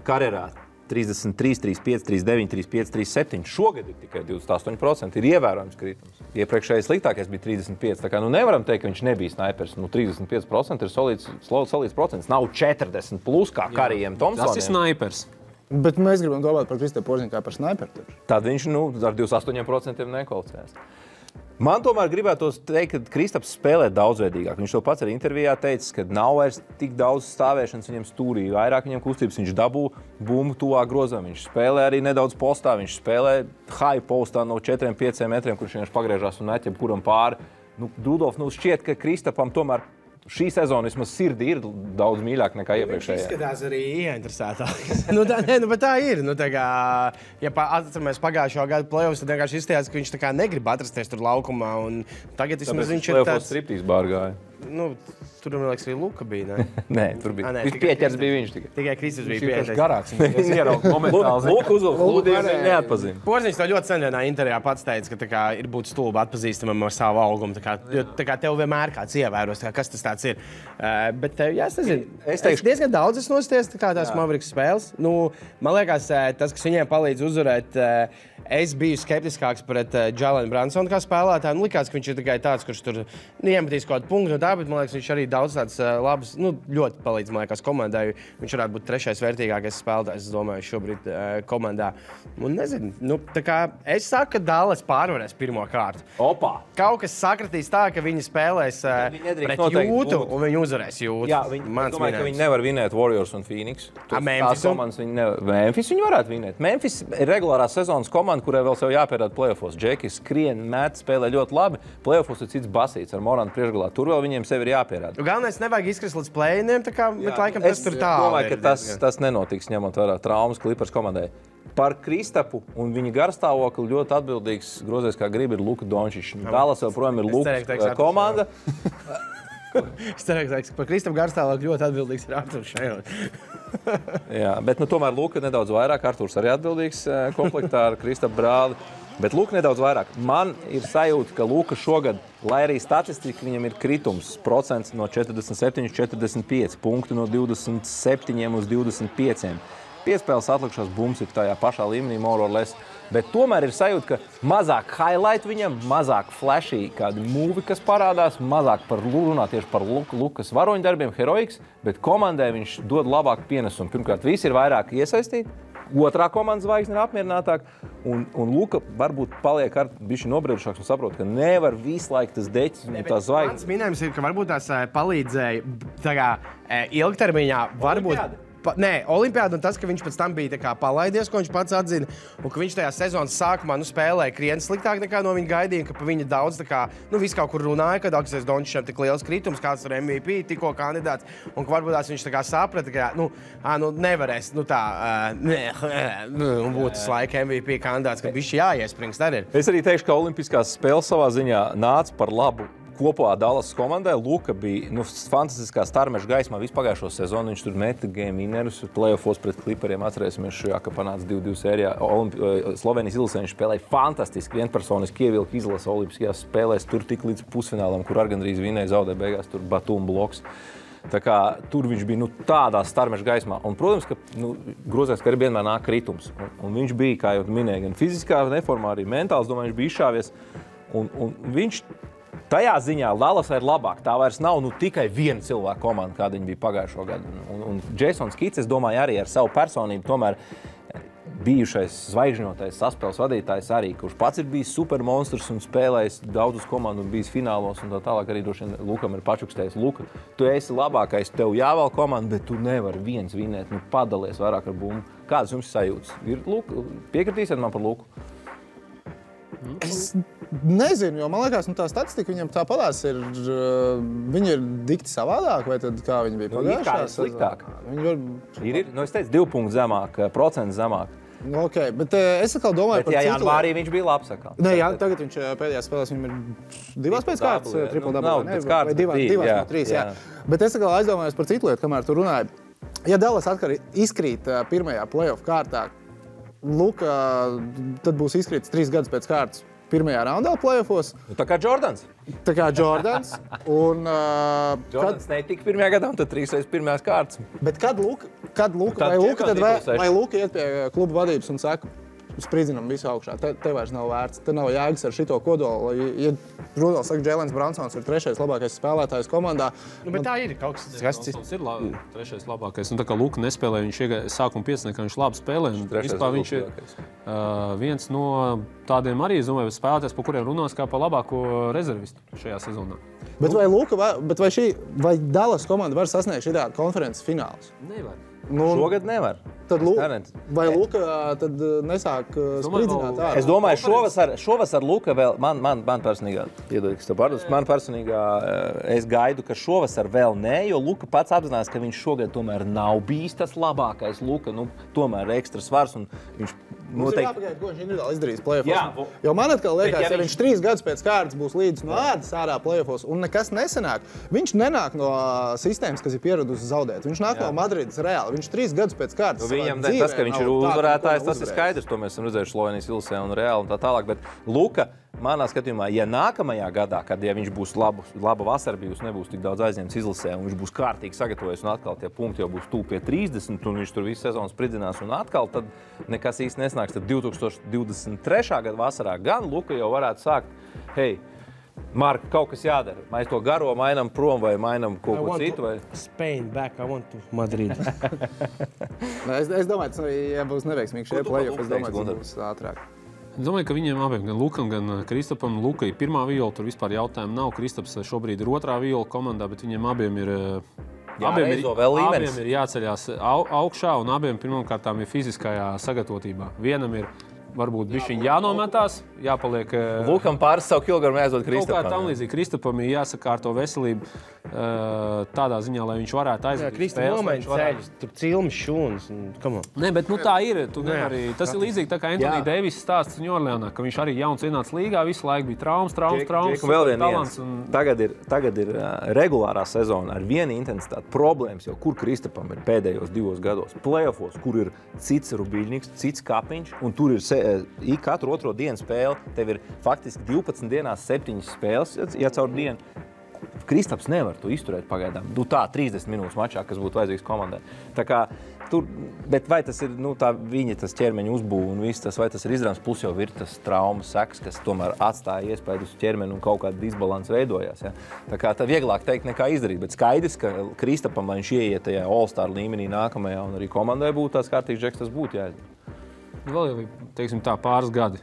karjerā. 33, 35, 39, 35, 37. Šogad ir tikai 28%. Ir ievērojams kritums. Iepriekšējais sliktākais bija 35%. Tā kā nevaram teikt, ka viņš nebija snipers. 35% ir solīts procents. Nav 40 plus kā Karijam Tomsonam. Tas ir snipers. Bet mēs gribam domāt par Kristapu Porziņu kā par sniperu. Tad viņš ar 28% nekvalificēs. Man tomēr gribētos teikt, ka Kristaps spēlē daudzveidīgāk. Viņš to pats arī intervijā teica, ka nav vairs tik daudz stāvēšanas viņam stūrī, vairāk viņam kustības, viņš dabū bumbu tuvāk grozam, viņš spēlē arī nedaudz postā, viņš spēlē high postā no 4-5 metriem, kurš vienkārši pagriežās un met jebkuram pāri. Rudolf, šķiet, ka Kristapam tomēr šī sezona vismaz sirdī ir daudz mīļāk nekā iepriekšējā. Viņš izskatās arī ieinteresētāk. Bet tā ir. Ja atceramies pagājušo gadu playoffs, tad vienkārši izstājās, ka viņš negrib atrasties tur laukumā. Tagad vismaz viņš ir tāds... Striptīs bārgāja. Tur, man liekas, arī Luka bija, ne? Nē, tur bija. Viņš pieķers bija viņš tikai. Tikai Kristus bija pieķers. Viņš garāks. Viņš ierauga momentāli. Luka uzvilk lūdījums, viņš neatpazina. Porziņš to ļoti sen vienā intervijā pats teica, ka ir būt stulbi atpazīstamam ar savu augumu. Tev vienmēr kāds ievēros, kas tas tāds ir. Bet, jā, es nezinu. Es diezgan daudz esmu nosties tās Mavericks spēles. Man liekas, tas, kas viņiem palīdz uzvarēt, es biju skeptiskāks pret Jalen Brunsonu kā spēlētāju. Likās, ka viņš ir tikai tāds, kurš tur iemetīs kaut kādu punktu no tā, bet man liekas, viņš arī daudz tāds labs, ļoti palīdz, man liekas, komandai. Viņš varētu būt trešais vērtīgākais spēlētājs, es domāju, šobrīd komandā. Un nezinu, es saku, ka Dallas pārvarēs pirmo kārtu. Opā! Kaut kas sakratīs tā, ka viņi spēlēs pret Jūtu un viņi uzvarēs Jūtu. Jā, es domāju, ka viņi nevar vinēt Warriors un Phoenix. Memphis viņi varētu vinēt. Memphis ir regulārās sezonas komanda, kurai vēl sev jāpierāda playoffos. Džekis skrien, met, spēlē ļoti labi. Playoffos ir cits basīts ar Morantu priekšgalā. Tur vēl viņiem sevi ir jāpierāda. Galvenais nevajag izkrist līdz play-iniem, bet laikam tas tur tā. Es domāju, ka tas nenotiks, ņemot vērā traumas Clippers komandai. Par Kristapu un viņa garstāvokli ļoti atbildīgs grozējs, kā grib, ir Luka Dončičs. Dallas joprojām ir Lukas komanda. Es ceru, ka par Kristapu garstāvokli ļoti atbildīgs ir Arturs Šajons. Jā, bet tomēr Luka nedaudz vairāk. Arturs arī atbildīgs komplektā ar Kristapu brāli. Bet Luka nedaudz vairāk. Man ir sajūta, ka Luka šogad, lai arī statistika viņam ir kritums, procents no 47-45, punktu no 27 uz 25. Piespēles atlikušās bumbas ir tajā pašā līmenī, more or less. Bet tomēr ir sajūta, ka mazāk highlight viņam, mazāk flashy kādi mūvi, kas parādās, mazāk runā tieši par Lukas varoņdarbiem, heroiks, bet komandai viņš dod labāku pienesumu. Pirmkārt, visi ir vairāk iesaistīti. Otrā komandas zvaigzne ir apmierinātāka, un Luka varbūt paliek ar bišķi nobriedušāks un saprot, ka nevar visu laiku tas deķis un tās zvaigznes. Mans minējums ir, ka varbūt tās palīdzēja ilgtermiņā, varbūt... Olimpiāda un tas, ka viņš pēc tam bija tā kā palaidies, ko viņš pats atzina, un ka viņš tajā sezonas sākumā spēlēja krietni sliktāk nekā no viņa gaidīja, ka pa viņa daudz tā kā, viss kaut kur runāja, ka Aleksējs Dončičam tik liels kritums, kāds ir MVP, tikko kandidāts, un ka varbūt viņš tā kā saprata, ka nevarēs, un būtu tas laika MVP kandidāts, ka bišķi jāiesprings arī ir. Es arī teikšu, ka olimpiskās spēles savā ziņā nāca par labu kopā Dallas komandai. Luka bija fantastiskā starmeša gaismā visu pagājušo sezonu. Viņš tur meta game winnerus, playoffos pret Clipperiem. Atcerēsimies šajā, ka panāca 2-2 sērijā. Slovenijas izlasē viņš spēlēja fantastiski, vienpersoniski ievilka izlase olimpiskajās spēlēs. Tur tik līdz pusfinālam, kur gandrīz vinēja, zaudēja beigās tur Batum bloks. Tā kā tur viņš bija tādā starmeša gaismā. Un, protams, ka grozēs, ka arī vienmēr nāk kritums. Un viņš bija, kā jau minēja, gan fiziskā neformā, arī mentāls, domāju, viņš bija izšāvies. Un viņš tajā ziņā Dallasā ir labāk. Tā vairs nav tikai viena cilvēka komanda, kāda viņa bija pagājušo gadu. Un Jasons Kits, es domāju, arī ar savu personību tomēr bijušais zvaigžņotais saspēles vadītājs arī, kurš pats ir bijis supermonstrs un spēlējis daudzus komandu un bijis finālos un tā tālāk arī droši vien Lukam ir pačukstējis. Luka, tu esi labākais, tev jāvēl komanda, bet tu nevari viens vinēt, padalies vairāk ar bumbu. Kādas jums sajūtas? Ir Luka? Piekritīsiet man par Luku? Es nezinu, jo man liekas, tā statistika viņam tāpatās ir, viņi ir dikti savādāk, vai tad kā viņi bija pagājušā? Sliktāk. Es teicu 2 punktu zemāk, procents zemāk. Ok, bet es atkal domāju par citu. Bet janvārī viņš bija labs atkal. Nē, tagad viņš pēdējās spēlēs, viņam ir 2 pēc kārtas, triple-double, vai 2 no 3, jā. Bet es atkal aizdomājos par citu lietu, kamēr tu runāji. Ja Dallas atkal izkrīt pirmajā playoff kārtā, Luka tad būs izkrītis 3 gadus pēc kārtas pirmajā raundā playoffos. Tā kā Jordans. Un, Jordans netika pirmajā gadā, un tad 3 reizes pirmajās kārtas. Bet kad Luka iet pie kluba vadības un saka, spridzinam visu augšā, te vairs nav vērts, te nav jēgas ar šito kodolu. Ja Rudolfs saka, Jēlens Bransons ir 3. labākais spēlētājs komandā. Bet tā ir kaut kas cits. Bransons ir 3. labākais. Un tā kā Luka nespēlēja, viņš iegāja sākuma 5, ka viņš labi spēlē. Vispār viņš ir viens no tādiem arī, es domāju, spēlētājs, pa kuriem runās kā pa labāko rezervistu šajā sezonā. Bet vai Luka, vai Dallas komanda var sasniegt šitā konferences finālus? Nevar. Šogad nevar. Vai Luka tad nesāk spridzināt ārā? Es domāju, šovasar Luka vēl, man personīgā, man personīgā, es gaidu, ka šovasar vēl nē, jo Luka pats apzinās, ka viņš šogad tomēr nav bijis tas labākais Luka, tomēr ekstra svars un viņš Mums ir jāpagaida, ko viņš individuāli izdarīs play-offos. Jo man atkal liekas, ja viņš 3 gadus pēc kārtas būs līdz no ādas ārā play-offos un nekas nesanāk, viņš nenāk no sistēmas, kas ir pieradusi zaudēt. Viņš nāk no Madrides Reāli. Viņš 3 gadus pēc kārtas viņam tas, ka viņš ir uzvarētājs, tas ir skaidrs. To mēs esam redzējuši Slovenijas Ilsē un Reāli un tā tālāk. Bet Luka, manā skatījumā, ja nākamajā gadā, kad viņš būs laba vasara bijusi, nebūs tik daudz aizņemts izlasē un viņš būs kārtīgi sagatavojies un atkal tie punkti jau būs tuvu pie 30 un viņš tur visu sezonu spridzinās un atkal, tad nekas īsti nesnāks. Tad 2023. gada vasarā gan Luka jau varētu sākt, hei, Mark, kaut kas jādara. Mēs to garo mainām prom vai mainām kaut ko citu? Spain back, I want to Madrid. Es domāju, ja būs neveiksmīgi šie play-off, es domāju, tas būs ātrāk. Es domāju, ka viņiem abiem, gan Lukam, gan Kristapam, Luka ir pirmā viola, tur vispār jautājumu nav. Kristaps šobrīd ir otrā viola komandā, bet viņiem abiem ir... Abiem ir jāceļās augšā un abiem pirmkārtām ir fiziskajā sagatavotībā. Vienam ir varbūt bišķiņ jānometās, jāpaliek... Lukam pāris savu kilogramu jāizdod Kristapam. Kaut kā tam līdzīgi. Kristapam ir jāsakārto veselību tādā ziņā, lai viņš varētu aizvadīt spēles. Kristap nomaina ceļus, tur cilmas šūnas. Nē, bet tā ir. Tas ir līdzīgi tā kā Anthony Davis stāsts Ņorleānā, ka viņš arī jauns ienāca līgā, visu laiku bija traumas. Vēl viens. Tagad ir regulārā sezona ar vienu intensitāti problēmas, jo kur Kristapam ir pēdējos 2 gados playoffos, kur ir cits Rubiļņiks, cits Kapiņš, un tur ir katru otro dienu spēle. Tev ir faktiski 12 dienās 7 spēles, ja caur dienu. Kristaps nevar to izturēt pagaidām. Tā 30 minūtes mačā, kas būtu vajadzīgs komandai. Tā kā tur, bet vai tas ir viņa tas ķermeņa uzbūve un viss tas, vai tas ir izdarāms, plus jau ir tas traumas sekas, kas tomēr atstāja iespēju uz ķermeni un kaut kāda disbalans veidojās. Ja? Tā kā tā vieglāk teikt nekā izdarīt, bet skaidrs, ka Kristapam, lai viņš ieiet tajā All-Star līmenī nākamajā un arī komandai būtu tās kārtīgs žeks, tas būtu jāizdara. vēl ir, teiksim tā, pāris gadi.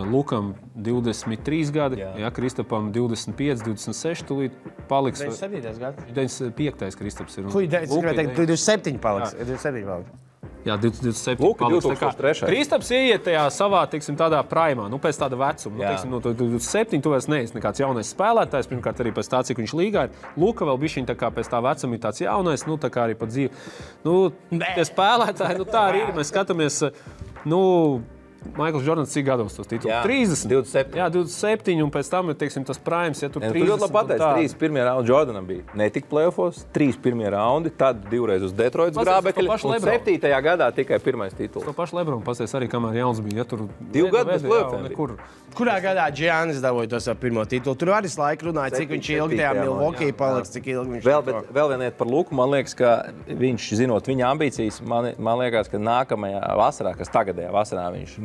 Lukam 23 gadi, jā, Kristapam 25, 26 tūlīt paliks. 97. gads. 95. Kristaps ir. Kui, es gribēju teikt, 27 paliks. 27 paliks. Jā, 27 Luka paliks. 2003. Kristaps ieiet tajā savā, teiksim, tādā primā, pēc tāda vecuma. Teiksim, 27 tu vairs neesi nekāds jaunais spēlētājs, pirmkārt arī pēc tā, cik viņš līgā ir. Luka vēl bišķiņ tā kā pēc tā vecuma ir tāds jaunais, tā kā arī pa dzīvi. Tie spēlētāji, tā arī ir. Mēs skatāmies, Maikls Jordans cik gados tos titulus? 30. 27. Jā, 27, un pēc tam ir, teiksim, tas primes, ja tur 30. Tu ļoti labi pateici, 3 pirmie raundi Jordanam bija. Ne tik playoffs, 3 pirmie raundi, tad 2 reiz uz Detroitas grābekļa, un 7. gadā tikai pirmais tituls. To pašu Lebronu pasies arī, kamēr jauns bija. Ja tur 2 gadu bez playoffiem bija. Kurā gadā Giannis dabūja to savu pirmo titulu? Tur arī laiku runāja, cik viņš ilgi tajā Milwaukee paliks, cik ilgi viņš... Vēl viena lieta par Luku, man liekas, ka viņš, zinot viņa ambīcijas, man liekas, ka nākamajā vasarā, kas tagadējā vasarā, viņš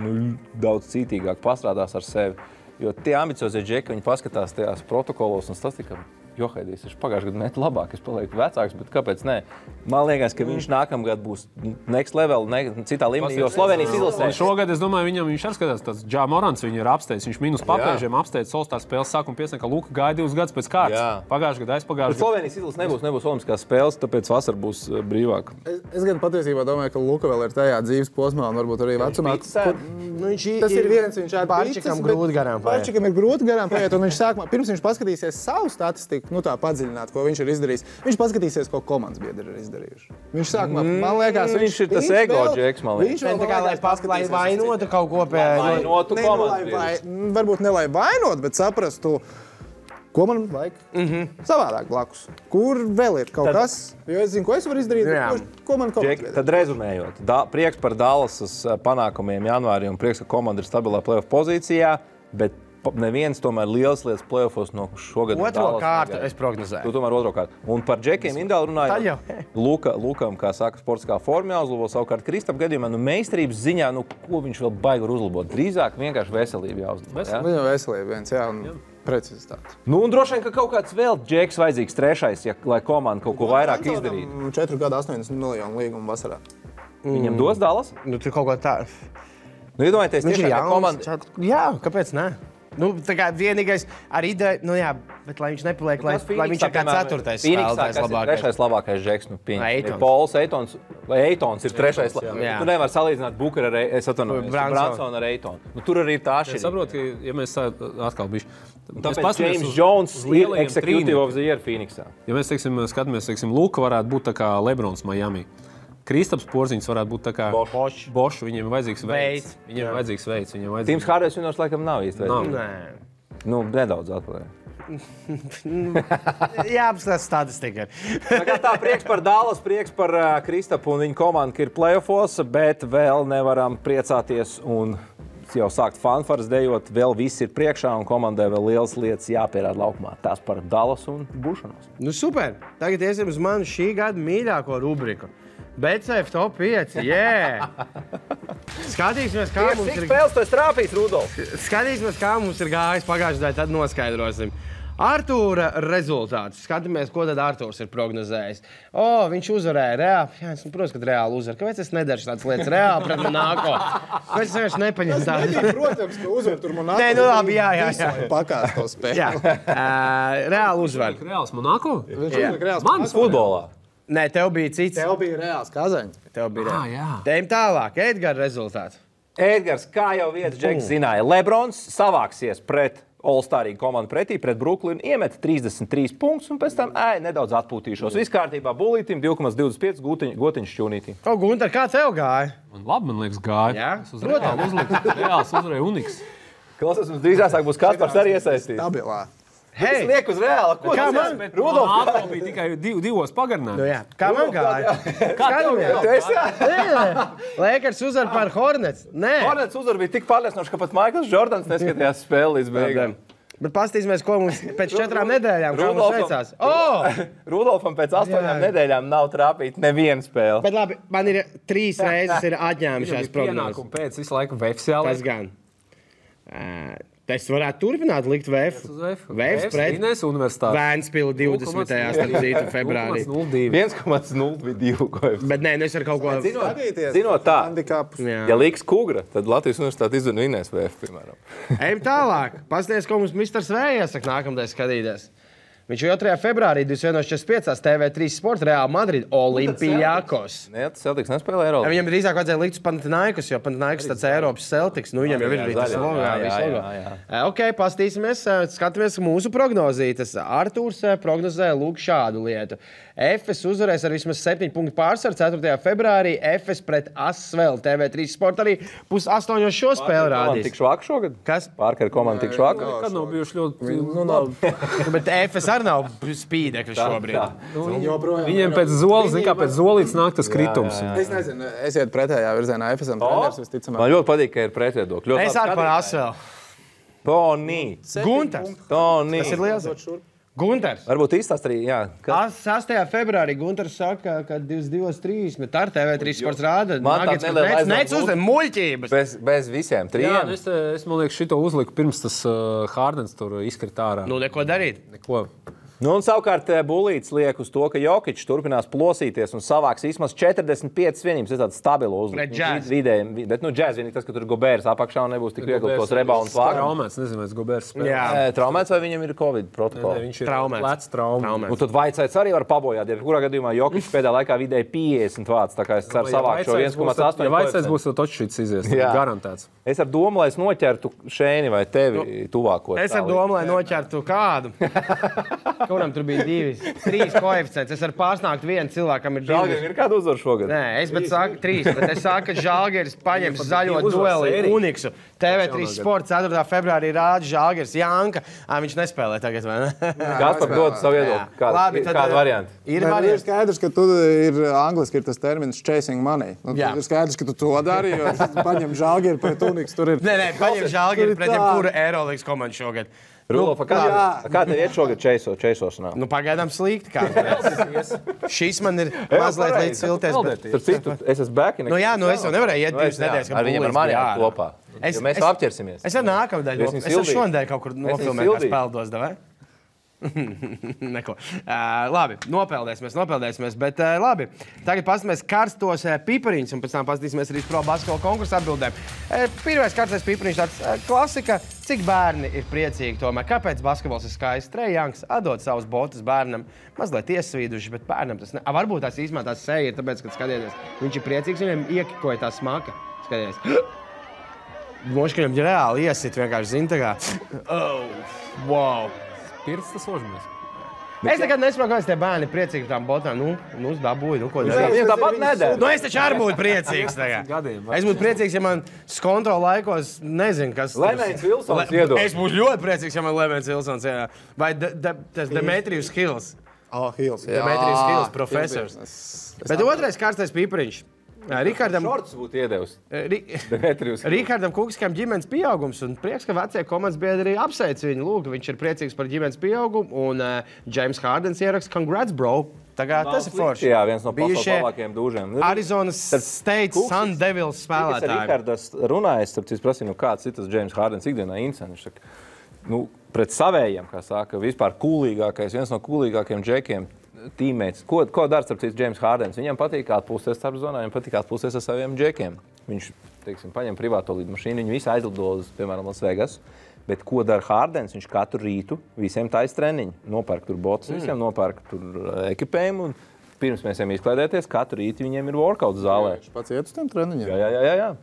daudz cītīgāk pastrādās ar sevi. Jo tie ambiciozie džeki, viņi paskatās tajās protokolos un statistikā. Johaidīs, viņš pagājušajā gadā net labāk, es palieku vecāks, bet kāpēc ne? Man liekas, ka viņš nākamgad būs next level, citā līmenī, jo Slovenijas izlasē. Šogad, es domāju, viņš arī skatās, tāds Ja Morants viņu ir apsteidz. Viņš minus papēžiem apsteidz Solstāra spēles sākumu piesaka, ka Luka gaida 2 gadus pēc kārtas. Pagājušajā gadā, aizpagājušajā gadā. Slovenijas izlasē nebūs olimpiskās spēles, tāpēc vasara būs brīvāk. Es gan patiesībā domāju, ka Luka vēl ir tajā dzīves posmā un varbūt arī vecumā. Tas ir viens, viņš Pārčikam grūti garām paiet. Pārčikam ir grūti garām paiet, un viņš sākumā, pirms viņš paskatīsies savu statistiku, tā padziļināt, ko viņš ir izdarījis. Viņš paskatīsies, ko komandas biedri ir izdarījuši. Viņš sākumā, man liekas, viņš ir tas ego džeks, man liekas. Viņš tā kā, lai vainotu kaut ko vainotu komandas. Varbūt ne lai vainot, bet saprastu, ko man vajag savādāk blakus. Kur vēl ir kaut kas? Jo es zinu, ko es varu izdarīt, ko man kaut kas. Tad rezumējot, prieks par Dallasas panākumiem janvārī un prieks, ka komanda ir stabilā playoff pozīcijā, bet neviens tomēr liels lietas playoffos no šogad. Otro kārtu es prognozēju. Tu tomēr otro kārtu. Un par džekiem Indāli runājot, Lukam, kā saka, sportiskā formā jāuzlabo, savukārt Kristap gadījumā, meistarības ziņā, ko viņš vēl baigi var uzlabot? Drīzāk vienkārši veselību jāuzlabo. Viņa veselība viens, jā, un precizitāte. Un droši vien, ka kaut kāds vēl džeks vajadzīgs trešais, lai komanda kaut ko vairāk izdarītu. 4 gadu 80 miljonu līgumu vasarā. Viņam dos Dallas? Tur kaut kā tā. Iedomājieties, tiešām, ka komanda... Jā, kāpēc ne? Tā kā vienīgais ar ideju, bet lai viņš nepaliek, lai viņš ir kā 4. spēlētājs labākais. 3. labākais džeks, Pols Eitons. Vai Eitons ir 3. Tu nevar salīdzināt Booker ar Bransonu ar Eitonu. Tur arī ir tā atšķirība. Es saprotu, ka, ja mēs atkal bišķi... Tāpēc James Jones ir executive of the year Phoenixā. Ja mēs, skatāmies, Luka varētu būt tā kā Lebrons Miami. Kristaps Porziņš varētu būt tā kā Bošs, viņiem ir vajadzīgs veids. Viņiem ir vajadzīgs veids. Tims Harders vienos laikam nav īsti veids. Nedaudz atpaliek. Jā, apskatās statistika. Tā prieks par Dallas, prieks par Kristapu un viņa komandu, ka ir playoffos, bet vēl nevaram priecāties un jau sākt fanfaras dejot. Vēl viss ir priekšā un komandai vēl lielas lietas jāpierāda laukumā. Tās par Dallas un būšanos. Super. Tagad iesim uz manu šī gada mīļāko rubriku. BCF top 5, Skatīsimies, kā mums ir... spēles tu esi trāpījis, Rudolf? Skatīsimies, kā mums ir gājis pagājušajā, tad noskaidrosim. Artūra rezultāts. Skatāmies, ko tad Artūrs ir prognozējis. Viņš uzvarēja reāli. Jā, protams, ka reāli uzvar. Kāpēc es nedaru tādas lietas reāli pret Monako? Kāpēc es vienkārši nepaņem tādu? Protams, ka uzvar tur Monako. Nē, labi, jā. Pakās to spēli. Jā, reāli uzvar. Reāls Monako? Mans futbolā. Nē, tev bija cits. Tev bija reāls Kazaņs. Tev bija reāls. Tejam tālāk. Edgara rezultāts. Edgars, kā jau viens džeks zināja, Lebrons savāksies pret All-Starīgu komandu pretī, pret Brooklynu, iemet 33 punktus un pēc tam nedaudz atpūtīšos. Viss kārtībā Bulītim, 2,25 gotiņš šķūnītī. Gunter, kā tev gāja? Labi, man liekas, gāja. Jā? Es uz reāli uzliku. Reāls uzvarēja Uniks. Klausies, mums drīzāk būs Kaspars arī iesaistīts. Stabilā. Es lieku uz reāli. Kā man? Rudolf bija tikai 2 pagarinājumi. Kā man gāja? Lakers uzvar par Hornets. Nē. Hornets uzvar bija tik pārliecinoši, ka pat Maikls Jordans neskatījās spēli līdz beigām. Bet pastīsimies, ko mums pēc 4 nedēļām kā mums veicās. Rudolfam pēc 8 nedēļām nav trāpīt neviena spēle. Bet labi, man ir 3 reizes ir atņēmušās prognozes. Pēc visu laiku vefsiāli. Tas gan. Es varētu turpināt likt VF. VF pret Vēnspili 20. starp februārī. 1,02. Bet nē, es ar kaut ko... Zinot tā, ja liks Kugra, tad Latvijas universitāte izvien vinnēs VF, piemēram. Ejam tālāk. Pasties, ko mums Misters V iesaka nākamdien skatīties. Viņš 2. februārī 21.45 TV3 Sport Real Madrid Olimpijakos. Nē, tas Celtics nespēlē Eiropas. Viņam drīzāk vajadzēja likt uz Panathinaikos, jo Panathinaikos tāds Eiropas Celtics. Nu, viņam jau ir tas logo. Ok, pastīsimies, skatāmies mūsu prognozītas. Artūrs prognozē lūk šādu lietu. Efes uzvarēs ar vismaz 7 punktu pārsvaru 4. februārī. Efes pret Asvel TV3 Sport arī 7:30 šo spēli rādīs. Tik švāk šogad? Kas? Parker komanda tik švāk? Kad nav bijuši ļoti... Bet Efes arī nav spīdekļi šobrīd. Viņiem pēc zoles, zin kā pēc zolītes nāk tas kritums. Es nezinu, esiet pretējā virzienā. Efesam treneris visticamāk. Man ļoti patīk, ka ir pretviedokļi. Es arī par Asvel. Toni. Gunters. Toni. Tas ir liels. Gunters. Varbūt īstās arī, jā. 6. februārī Gunters saka, ka 22.30 ar TV3 Sports rāda. Man tāds neliela Nec uzdem muļķības. Bez visiem trijiem. Jā, es man liekas šito uzliku pirms tas Hardens tur izkrit ārā. Nu, neko darīt. Neko. Nu, un savukārt Bulīts liek uz to, ka Jokičs turpinās plosīties un savāks vismaz 45 vienības. Tas tāds stabilo uzlikt. Bet, Džēz vienīgi tas, ka tur Gobērs apakšā un nebūs tik viegli tos reboundus vākt. Traumēts, nezinu, vai Gobērs spēlē. Traumēts vai viņam ir Covid protokola? Viņš ir lec traumēts. Nu, tad Vaicēts arī var pabojāt. Ja kurā gadījumā Jokičs pēdējā laikā vidēji 50 vāts, tā kā es ceru savākt šo 1,8. Ja Vaicēts būs, tad točšīts izies. Garantēts. Es ar domu, lai es noķertu Šēni vai tevi tuvāko. Es ar domu, lai noķertu kādu. Kuram tur bija 3 koeficients. Es varu pārsnākt vienu cilvēkam ir 2. Žalgiris ir kādu uzvaru šogad? Nē, es saku 3, bet es saku, ka Žalgiris paņems zaļo dueli Uniksu. TV3 Sports 4. februārī rāda Žalgiris Janka. Viņš nespēlē tagad, vai ne? Gaspar dod savu viedokli. Kādu variantu? Ir skaidrs, ka tu ir angliski ir tas termins chasing money. Ir skaidrs, ka tu to dari, jo paņem Žalgiri pret Uniksu. Nē, paņem Žalgiri pret jebkuru Eirolīgas komandu šogad. Rulova, kā tev iet šogad čeisošanā? Nu, pagaidām slikti kāds. Šis man ir mazliet līdz silties. Starp citu, es esmu bēki. Nu jā, es jau nevarēju iet 2 nedēļas, ar viņiem ar mani kopā. Jo mēs apķersimies. Es ar nākamdēļ. Es ar šonadēļ kaut kur nofilmēju, kā spēldos, davai? Neko. Labi, nopeldēsimies, bet labi. Tagad paskatīsimies karstos pipariņus un pēc tam paskatīsimies arī pro basketbola konkursu atbildēm. Pirmais karstais pipariņš tāds klasika. Cik bērni ir priecīgi tomēr? Kāpēc basketbols ir skaists? Trey Youngs atdod savus botus bērnam, mazliet iesvīduši, bet bērnam tas ne... Varbūt tās īstumā tās seja ir, tāpēc, kad skatieties, viņš ir priecīgs, viņam iekikoja tā smaka. Skatieties. Moši, ka viņam reāli iesit vienkārši zin tā kā. Oh, wow. Pirts tas ožamies. Es nekad nesaprotu, kāpēc tie bērni ir priecīgi par tām botām. Nu dabūju, ko darīt. Viņam tāpat nedara. Nu, es taču arī būtu priecīgs tagad. Es būtu priecīgs, ja man skontrola laikos nezinu, kas... Lemēns Vilsons iedod. Es būtu ļoti priecīgs, ja man Lemēns Vilsons iedod. Vai tas Demetrijus Hills. Hills, jā. Demetrijus Hills, profesors. Bet otrais karstais pipariņš. Rikardam Šorts būtu iedevis. Rikardam Kukiskam ģimenes pieaugums un prieks, ka vecie komandas biedri apsveic viņu. Lūk, viņš ir priecīgs par ģimenes pieaugumu un James Hardens ieraksta congrats, bro. Tagad tas ir forši. Jā, viens no pasaules labākajiem dūžiem. Arizonas State Sun Devils spēlētāji. Rikardas runājas, tāpēc es prasīju, kāds ir tas James Hardens ikdienā incens. Pret savējiem, kā saka, vispār kūlīgākais, viens no kūlīgākajiem džekiem. Tīmēts. Ko dara starp citu James Hardens? Viņam patīk atpūsties starp zonā, viņam patīk atpūsties ar saviem džekiem. Viņš, teiksim, paņem privāto lidmašīnu, viņi visi aizlido uz, piemēram, Las Vegas. Bet ko dara Hardens? Viņš katru rītu visiem tais treniņu. Nopērk tur botus, visiem nopērk tur ekipējumu. Un pirms mēs ejam izklaidēties, katru rītu viņiem ir workout zālē. Viņš pats iet uz tiem treniņiem? Jā.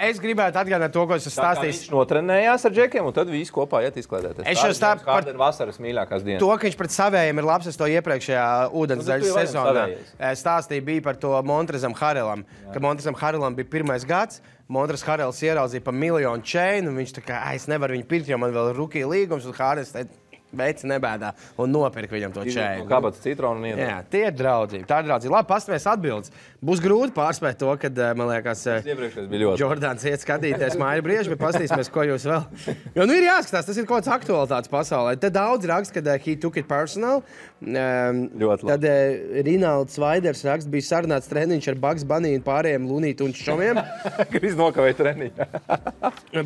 Es gribētu atgādināt to, ko es stāstīju. Viņš notrenējās ar džekiem, un tad visi kopā iet izklaidēties. Es jau stāstu par vasaras mīļākās dienas. To, ka viņš pret savējiem ir labs, es to iepriekšējā ūdensdaļas sezonā stāstīju bija par to Montrezam Harrelam. Ka Montrezam Harrelam bija 1. gads, Montrez Harrels ieraudzīja pa 1 miljonu čeinu, un viņš tā kā, es nevaru viņu pirkt, jo man vēl ir rookie līgums, un Harrels teica, veici nebēdā un nopirka viņam to čēju. Kāpēc citronu iedod? Jā, tie ir draudzība. Tā ir draudzība. Labi, pastamies atbildes. Būs grūti pārspēt to, kad, man liekas, Jordāns iet skatīties māju brieži, bet pastīsimies, ko jūs vēl. Jo, ir jāskatās, tas ir kaut kāds aktualitātes pasaulē. Te daudz raksta, kad he took it personal. Tad Rinalds Vaiders raksta, bija sarunāts treniņš ar Bugs Bunny un pārējiem Lunītu un Šomiem. Kriz nokavēja treniņu.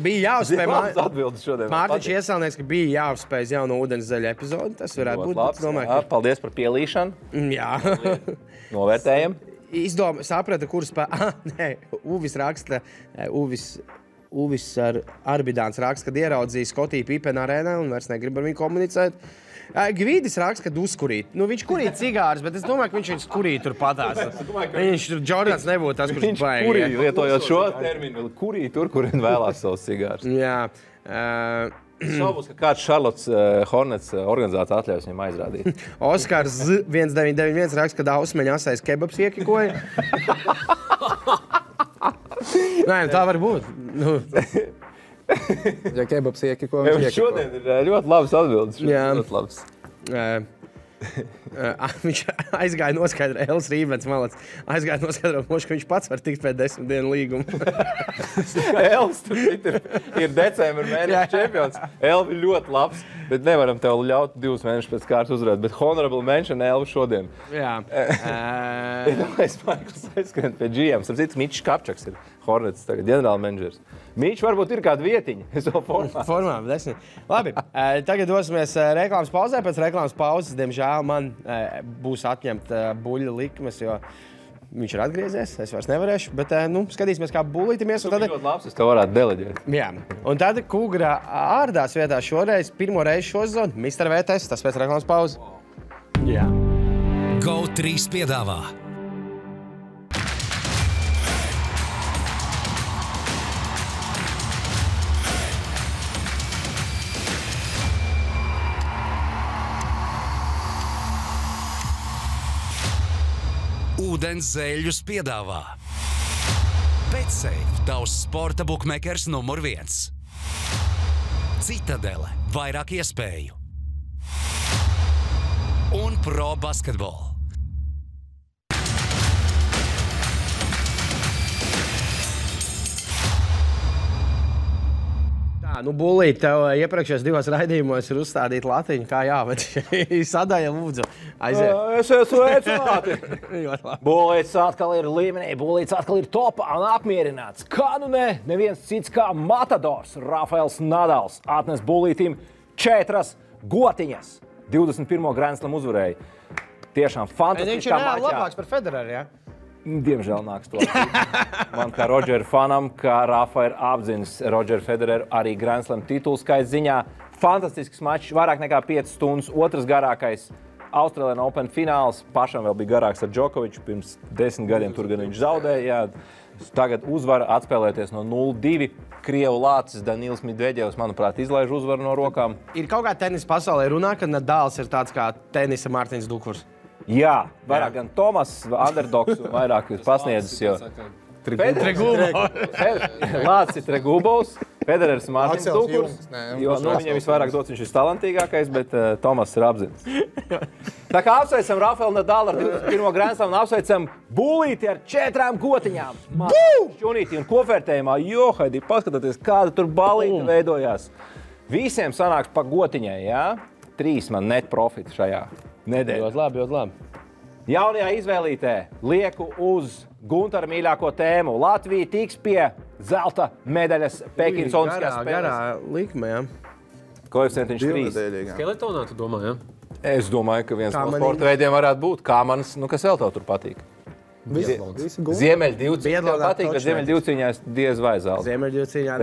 Bija jāuzspēj. Atbildes šodien. Mārtiņš iesalnieks, ka bija jāuzspēj jauno ūdenszeļa epizodu. Tas varētu būt. Domāju, paldies par pielīšanu. Jā. Novērtējam. Saprata, kurus Uvis raksta, Uvis ar Arbidāns raksta, kad ieraudzīja Skotiju Pipena arēnā un vairs negrib ar viņu komunicēt. Gvidis raksta, kad uzkurīt. Viņš kurīt cigārus, bet es domāju, ka viņš kurīt tur patās. Viņš tur Jordans nebūtu tas, kurš baigi. Viņš kurīt, lietojot šo terminu, kurīt tur, kur viņi vēlās savus cigārus. Jā. Šaubos, ka kāds Charlottes Hornets organizācija atļaus viņam aizrādīt. Oskars 1991 raksta, kad Ausmeņa asais kebabs iekikoja. Nē, tā var būt. Ja kebabs iekikoja, viņš iekikoja. Šodien ir ļoti labas atbildes. Jā. Ļoti labas. Viņš aizgāja noskaidrot, Elvis Rībens malac, aizgāja noskaidrot, ka viņš pats var tikt pēc 10 dienu līguma. Elvis tur ir decembra mēneša čempions. Elvis ir ļoti labs, bet nevaram tev ļaut 2 mēnešus pēc kārtas uzvarēt. Bet honorable mention Elvis šodien. Jā. Es Maikls aizskrien pie GM. Starp citu, Mičs Kapčaks ir Hornets tagad, ģenerāla menedžers. Mičs varbūt ir kāda vietiņa. Es vēl formā. Labi, tagad dosimies reklāmas pauzē. Pēc reklāmas pauzes, diemžēl, man būs atņemta buļļa likmes, jo viņš ir atgriezies. Es vairs nevarēšu, bet skatīsimies, kā buļītimies. Tu ļoti labs, es tev varētu deleģēt. Jā, un tad Kūgra ārdās vietā šoreiz, pirmo reizi šo sezonu, Mr. VTS, tas pēc reklāmas pauzes. Jā. GO3 piedāvā. Ūdens zeļus piedāvā. BetSafe, tavs sporta bukmekers numur 1. Citadele, vairāk iespēju. Un Pro Basketball. Bulīt, tev iepriekšējos 2 raidījumos ir uzstādīta latiņa, kā jāved. Sadaļa, lūdzu, aiziet. Es esmu sveicināti. Bulīts atkal ir līmenī, Bulīts atkal ir topā un apmierināts. Kā nu ne, neviens cits kā Matadors, Rafaels Nadals, atnes Bulītim 4 gotiņas. 21. Grand Slam uzvarēja. Tiešām fantastiskā mačā. Viņš ir reāli labāks par Federeru, jā? Diemžēl nāks to. Man kā Rodžera fanam, kā Rafa ir apzinis Rodžeru Federeru arī Grand Slam titulu skaits ziņā. Fantastisks mačs, vairāk nekā 5 stundas, otrs garākais Australian Open fināls. Pašam vēl bija garāks ar Džokoviču, pirms 10 gadiem tur gan viņš zaudēja. Tagad uzvara atspēlēties no 0-2. Krievu lācis Danils Medvedevs, manuprāt, izlaiž uzvaru no rokām. Ir kaut kā tenisa pasaulē runā, ka Nadals ir tāds kā tenisa Mārtiņš Dukurs. Jā, vairāk gan Tomas, underdogs, vairāk pasniedzis, jo Lācis ir Tregubovs, Federers Mārtiņš Dukurs, jo viņam visvairāk dots, viņš ir talantīgākais, bet Tomas ir apzinis. Tā kā apsveicam Rafaelu Nadalu ar 21. Grand Slam un apsveicam Bulīti ar 4 gotiņām. Šķunīti un kopvērtējumā, Haidī, paskatieties, kāda tur balīta veidojās. Visiem sanāks pa gotiņai, jā? 3 man net profita šajā nedēļā. Ļoti labi. Jaunajā izvēlītē lieku uz Guntara mīļāko tēmu. Latvija tiks pie zelta medaļas Pekinas Olimpiskajās spēlēs. Garā likme, jā. Koeficientiņš 3. Skeletonā, tu domā, jā? Es domāju, ka viens no sporta veidiem varētu būt kāmanis, kas vēl tev tur patīk. Ziemeļdivcīņā tev patīk, bet Ziemeļdivcīņā diez vai zelta. Ziemeļdivcīņā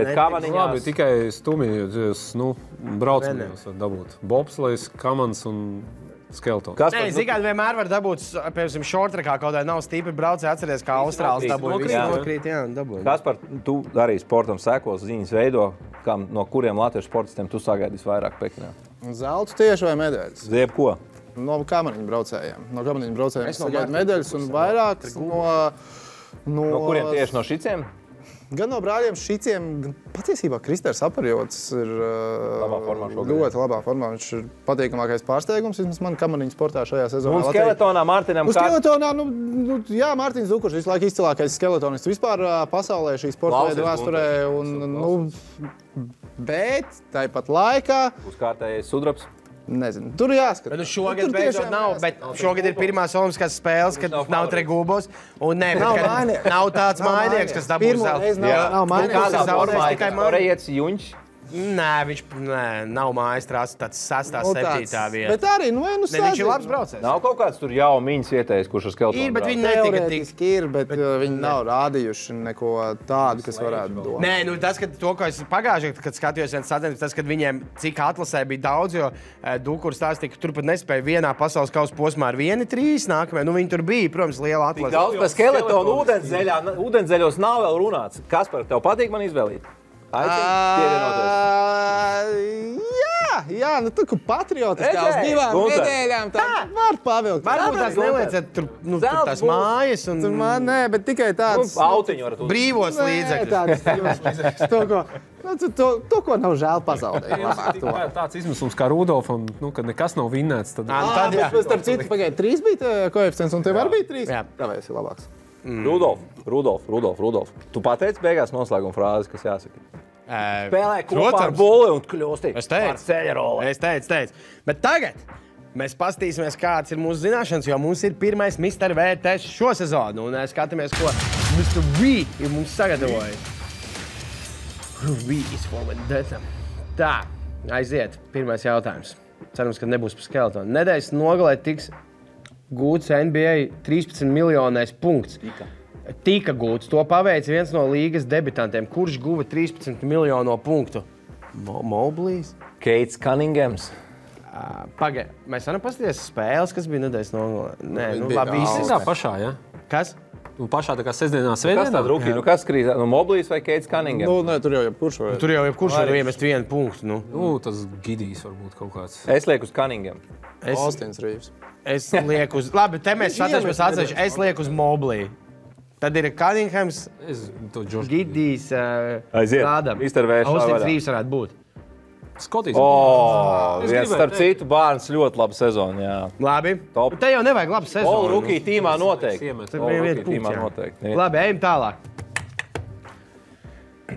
labi, tikai stumjas, braucamajos var dabūt. Bobslejs, kamans un skeletons. Nē, zikāt, vienmēr var dabūt, piemēram, šortrekā kaut kādā nav stīpi braucē, atceries, kā Austrāls dabūja. Nokrīt, jā, dabūja. Kaspar, tu arī sportam sekos, ziņas veido, no kuriem latviešu sportistiem tu sagaidīs vairāk Pekinā? Zelts tieši vai medaļas? Zieb ko? No kamaniņu braucējiem. No kamaniņu braucējiem es sagaidu medaļas un vairāk no kuriem tieši no šiciem? Gan no brāļiem Šiciem, gan patiesībā Kristers Aparjots ir ļoti labā formā. Viņš ir patīkamākais pārsteigums, vismaz man kamaniņu sportā šajā sezonā. Un skeletonā Mārtiņam Skeletonā, jā, Mārtiņš Zukurš visu laiku izcilākais skeletonists vispār pasaulē šī sporta veida vēsturē. Bet tāpat laikā... Uzkārtējais sudrabs. Nezinu, tur jāskatās. Šogad beidzot nav, bet šogad ir pirmās olimpiskās spēles, kad nav Tregūbos. Un nav tāds mājnieks, kas dabūs zeltu. Nav mājnieks. Nē, viņš nav mājas tāds 6. 7. vieta. Bet arī, viņš ir labs braucējs. Nav kaut kāds tur jau miņas vietējs, kurš ar skeletonu ir, bet viņi netika tik. Ir, bet viņi nav rādījuši neko tādu, kas varētu dot. Nē, tas, ka to, ko es pagājušajā, kad skatījos viens sacensības, tas, kad viņiem cik atlasē bija daudz, jo Dukurs stāstīja, ka turpat nespēja vienā pasaules kausa posmā ar 1-3 nākamajā. Viņi tur bija, protams, liela atlase. Daudz par skeletonu ūdenszeļos nav vēl runāts. Kaspar, tev patīk man izvēlīt? Jā, tu kā patriotiskā uz 2 nedēļām tā var pavilkt. Varbūt tās nelieciet tur tās mājas un... Nē, bet tikai tāds... Autiņu varat uzlikt. Brīvos līdzekļus. To, ko nav žēl pazaudēt. Tāds izmisums kā Rudolfam, kad nekas nav vinnēts. Starp citu, pagaid, 3 bija koeficients un tev arī bija 3? Jā. Tāpēc ir labāks. Rudolf. Tu pateici beigās noslēguma frāzi, kas jāsaka. Spēlē kopā ar Bulli un kļūsti par ceļaroli. Es teicu. Bet tagad mēs pastīsimies, kāds ir mūsu zināšanas, jo mums ir pirmais Mr. V tests šo sezonu. Un skatāmies, ko Mr. V ir mums sagatavojis. V is for vendetta. Tā, aiziet. Pirmais jautājums. Cerams, ka nebūs par skeletonu. Nedēļas nogalē tiks gūts NBA 13 miljonais punkts. Tika gūts. To paveica viens no līgas debitantiem. Kurš guva 13 miljono punktu? Moblīs? Keits Cunninghams. Pagaid, mēs varam paskatīties spēles, kas bija nedēļas nogalē. Nē, labi, visi. Tā pašā, jā? Kas? Pašā tā kā sestdienā, svētdienā? Kas tāda rukī? Kas krīt? Moblīs vai Keits Cunninghams? Nē, tur jau jebkurš var. Tur jau jebkurš var iemest 1 punktu. Tas Gidijs varbūt kaut kāds. Es lieku uz Cunningham. Austins Rīvs. Es lieku uz... Labi, te mēs satrašamies atsevišķi. Es lieku uz Moblī. Tad ir Cunninghams, Gidijs, Rādam. Austins Rīvs varētu būt. Skotīs. Starp citu, Bārns ļoti laba sezona, jā. Labi. Te jau nevajag labu sezonu. All rookie tīmā noteikti. Labi, ejam tālāk.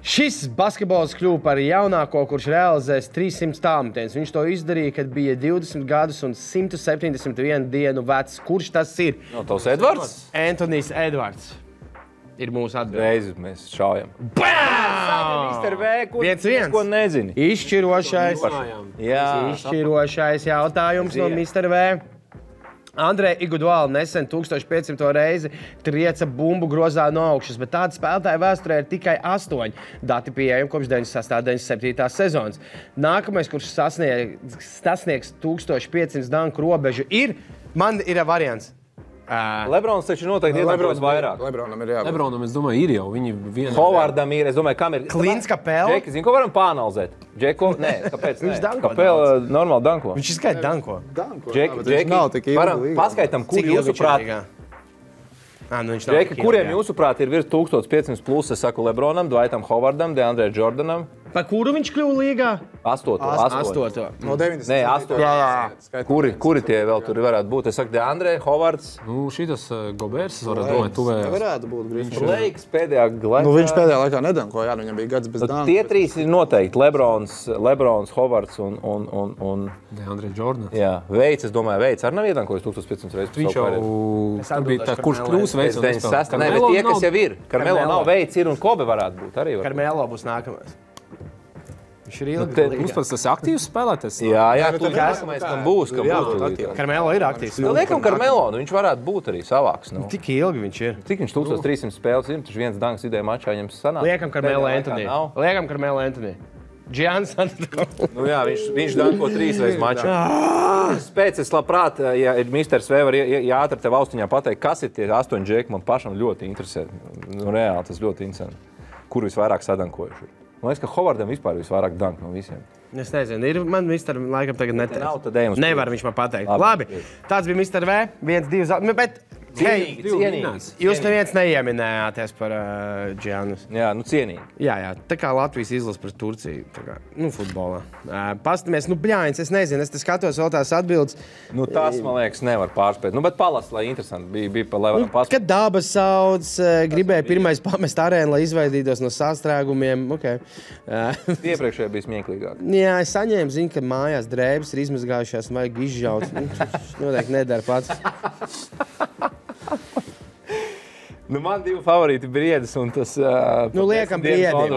Šis basketbols kļuva par jaunāko, kurš realizēs 300 tālmetienus. Viņš to izdarīja, kad bija 20 gadus un 171 dienu vecs. Kurš tas ir? Tavs Edvards? Antonijs Edvards. Ir mūsu atbilde. Reizi mēs šaujam. Mr. V, ko nezini. Izšķirošais jautājums no Mr. V. Andrei Iguodala nesen 1500 reizi trieca bumbu grozā no augšas, bet tāda spēlētāja vēsturē ir tikai 8. Dati pieejami kopš 96.97. sezonas. Nākamais, kurš sasniegs 1500 danku robežu, man ir variants. Lebrons taču noteikti iedankos vairāk. Lebronam ir jābūt. Lebronam, es domāju, ir jau. Viņi vienā... Hovardam ir, es domāju, kam ir... Klins Kapela? Džeki, zinu, ko varam pāanalizēt? Džeko? Nē, kāpēc? Viņš danko. Kapela normāli danko. Viņš izskaita danko. Džeki, varam paskaitam, kur jūsuprāt... Džeki, kuriem jūsuprāt ir virs 1500 plus, es saku Lebronam, Dwightam Hovardam, DeAndre Jordanam. Pa kuru viņš kļuva līgā? 8. No 90. Nē, 8. Kuri tie vēl tur varētu būt? Es saku, DeAndre, Hovards. Šitas Gobers, varētu domāt, tuvējās. Varētu būt grīznieks. Blakes pēdējā laikā. Viņš pēdējā laikā nedanko, viņam bija gads bez danku. Tie 3 ir noteikti. Lebrons, Hovards un... DeAndre Jordan. Jā, Veids, es domāju, Veids arī nav iedankojis 1500 reizes. Viņš jau bija tā, kurš kļūs Veids un nespēlē. Nē, bet tie, kas jau ir. Karmelo nav, Veids ir un Kobe varētu būt arī. Karmelo būs nākamais. Viņš ir Mums pats tas aktīvs spēlētājs. Jā, tu nākamais, kam būs. Karmelo ir aktīvs. Liekam Karmelo, viņš varētu būt arī savāks. Tik ilgi viņš ir. Cik viņš 1300 spēles ir, taču viens danks idejā mačā viņam sanāk. Liekam Karmelo Anthony. Giannis Antetokounmpo. Jā, viņš danko 3 reizes mačā. Pēc es labprāt, ja Mr. V var ātri tev austiņā pateikt, kas ir tie 8 džeki, man pašam ļoti interesē. Reāli tas ļoti interesē. Kur visvairāk sadankojuši? Man liekas, ka Hovardam vispār visvairāk dank no visiem. Es nezinu, man Mr. laikam tagad neteiks. Nav, tad ejam uz Nevar viņš man pateikt. Labi, tāds bija Mr. V, 1, 2, bet Cienīgi. Jūs neviens neieminējāties par Džianus. Jā, nu cienīgi. Jā, tā kā Latvijas izlase par Turciju, tā kā, futbolā. Pastamies, bļāņas, es nezinu, es te skatos vēl tās atbildes. Tas, man liekas, nevar pārspēt. Bet palas, lai interesanti bija lai varam pārspēt. Kad dabas sauc, gribēja pirmais pamest arēnu, lai izvaidītos no sastrēgumiem. Okay. Iepriekšējā bija smieklīgāk. Jā, es saņēmu ziņu, ka mājās drēbes ir izmazgājušās, vajag izžaut. Noteikti nedara pats. Man divi favorīti Briedis un tas... liekam Briedim.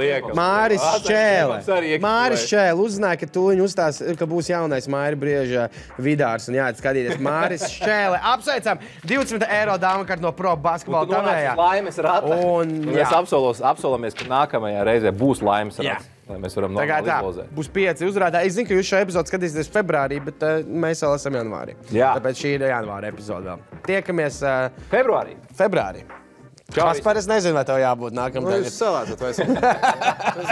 Liekam. Māris Šķēle uzzināja, ka tūliņ uzstās, ka būs jaunais Māri Brieža Vidārs un jāiet skatīties. Māris Šķēle. Apsveicam 20 eiro dāvakarti no Pro basketbola tavējā. Laimes rata. Un mēs apsolamies, ka nākamajā reizē būs laimes rata. Lai mēs varam normāli izlozēt. Būs 5 uzvarētāji. Es zinu, ka jūs šo epizodu skatīsieties februārī, bet mēs vēl esam janvārī. Jā. Tāpēc šī ir janvāra epizode vēl. Tiekamies februārī. Kaspar, es nezinu, vai tev jābūt nākamajā. Jūs salātot, vai es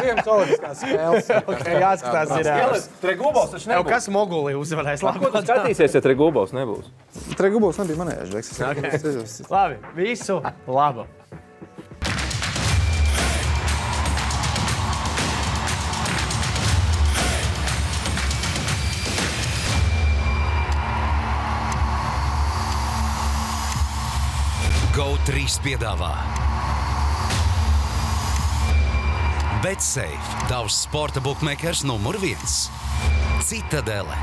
Ziemas olimpiskās spēles. Jāskatās ir... Tregubovs taču nebūs. Kas Mogulī uzvarēs? Ko tu skatīsies, ja Tregubovs nebūs? Tregubovs nebija manējais. Labi, visu labu. GO3 piedāvā BetSafe, tavs sporta bookmakers numur 1. Citadele,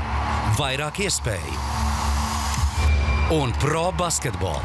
vairāk iespēju. Un Pro basketbolu.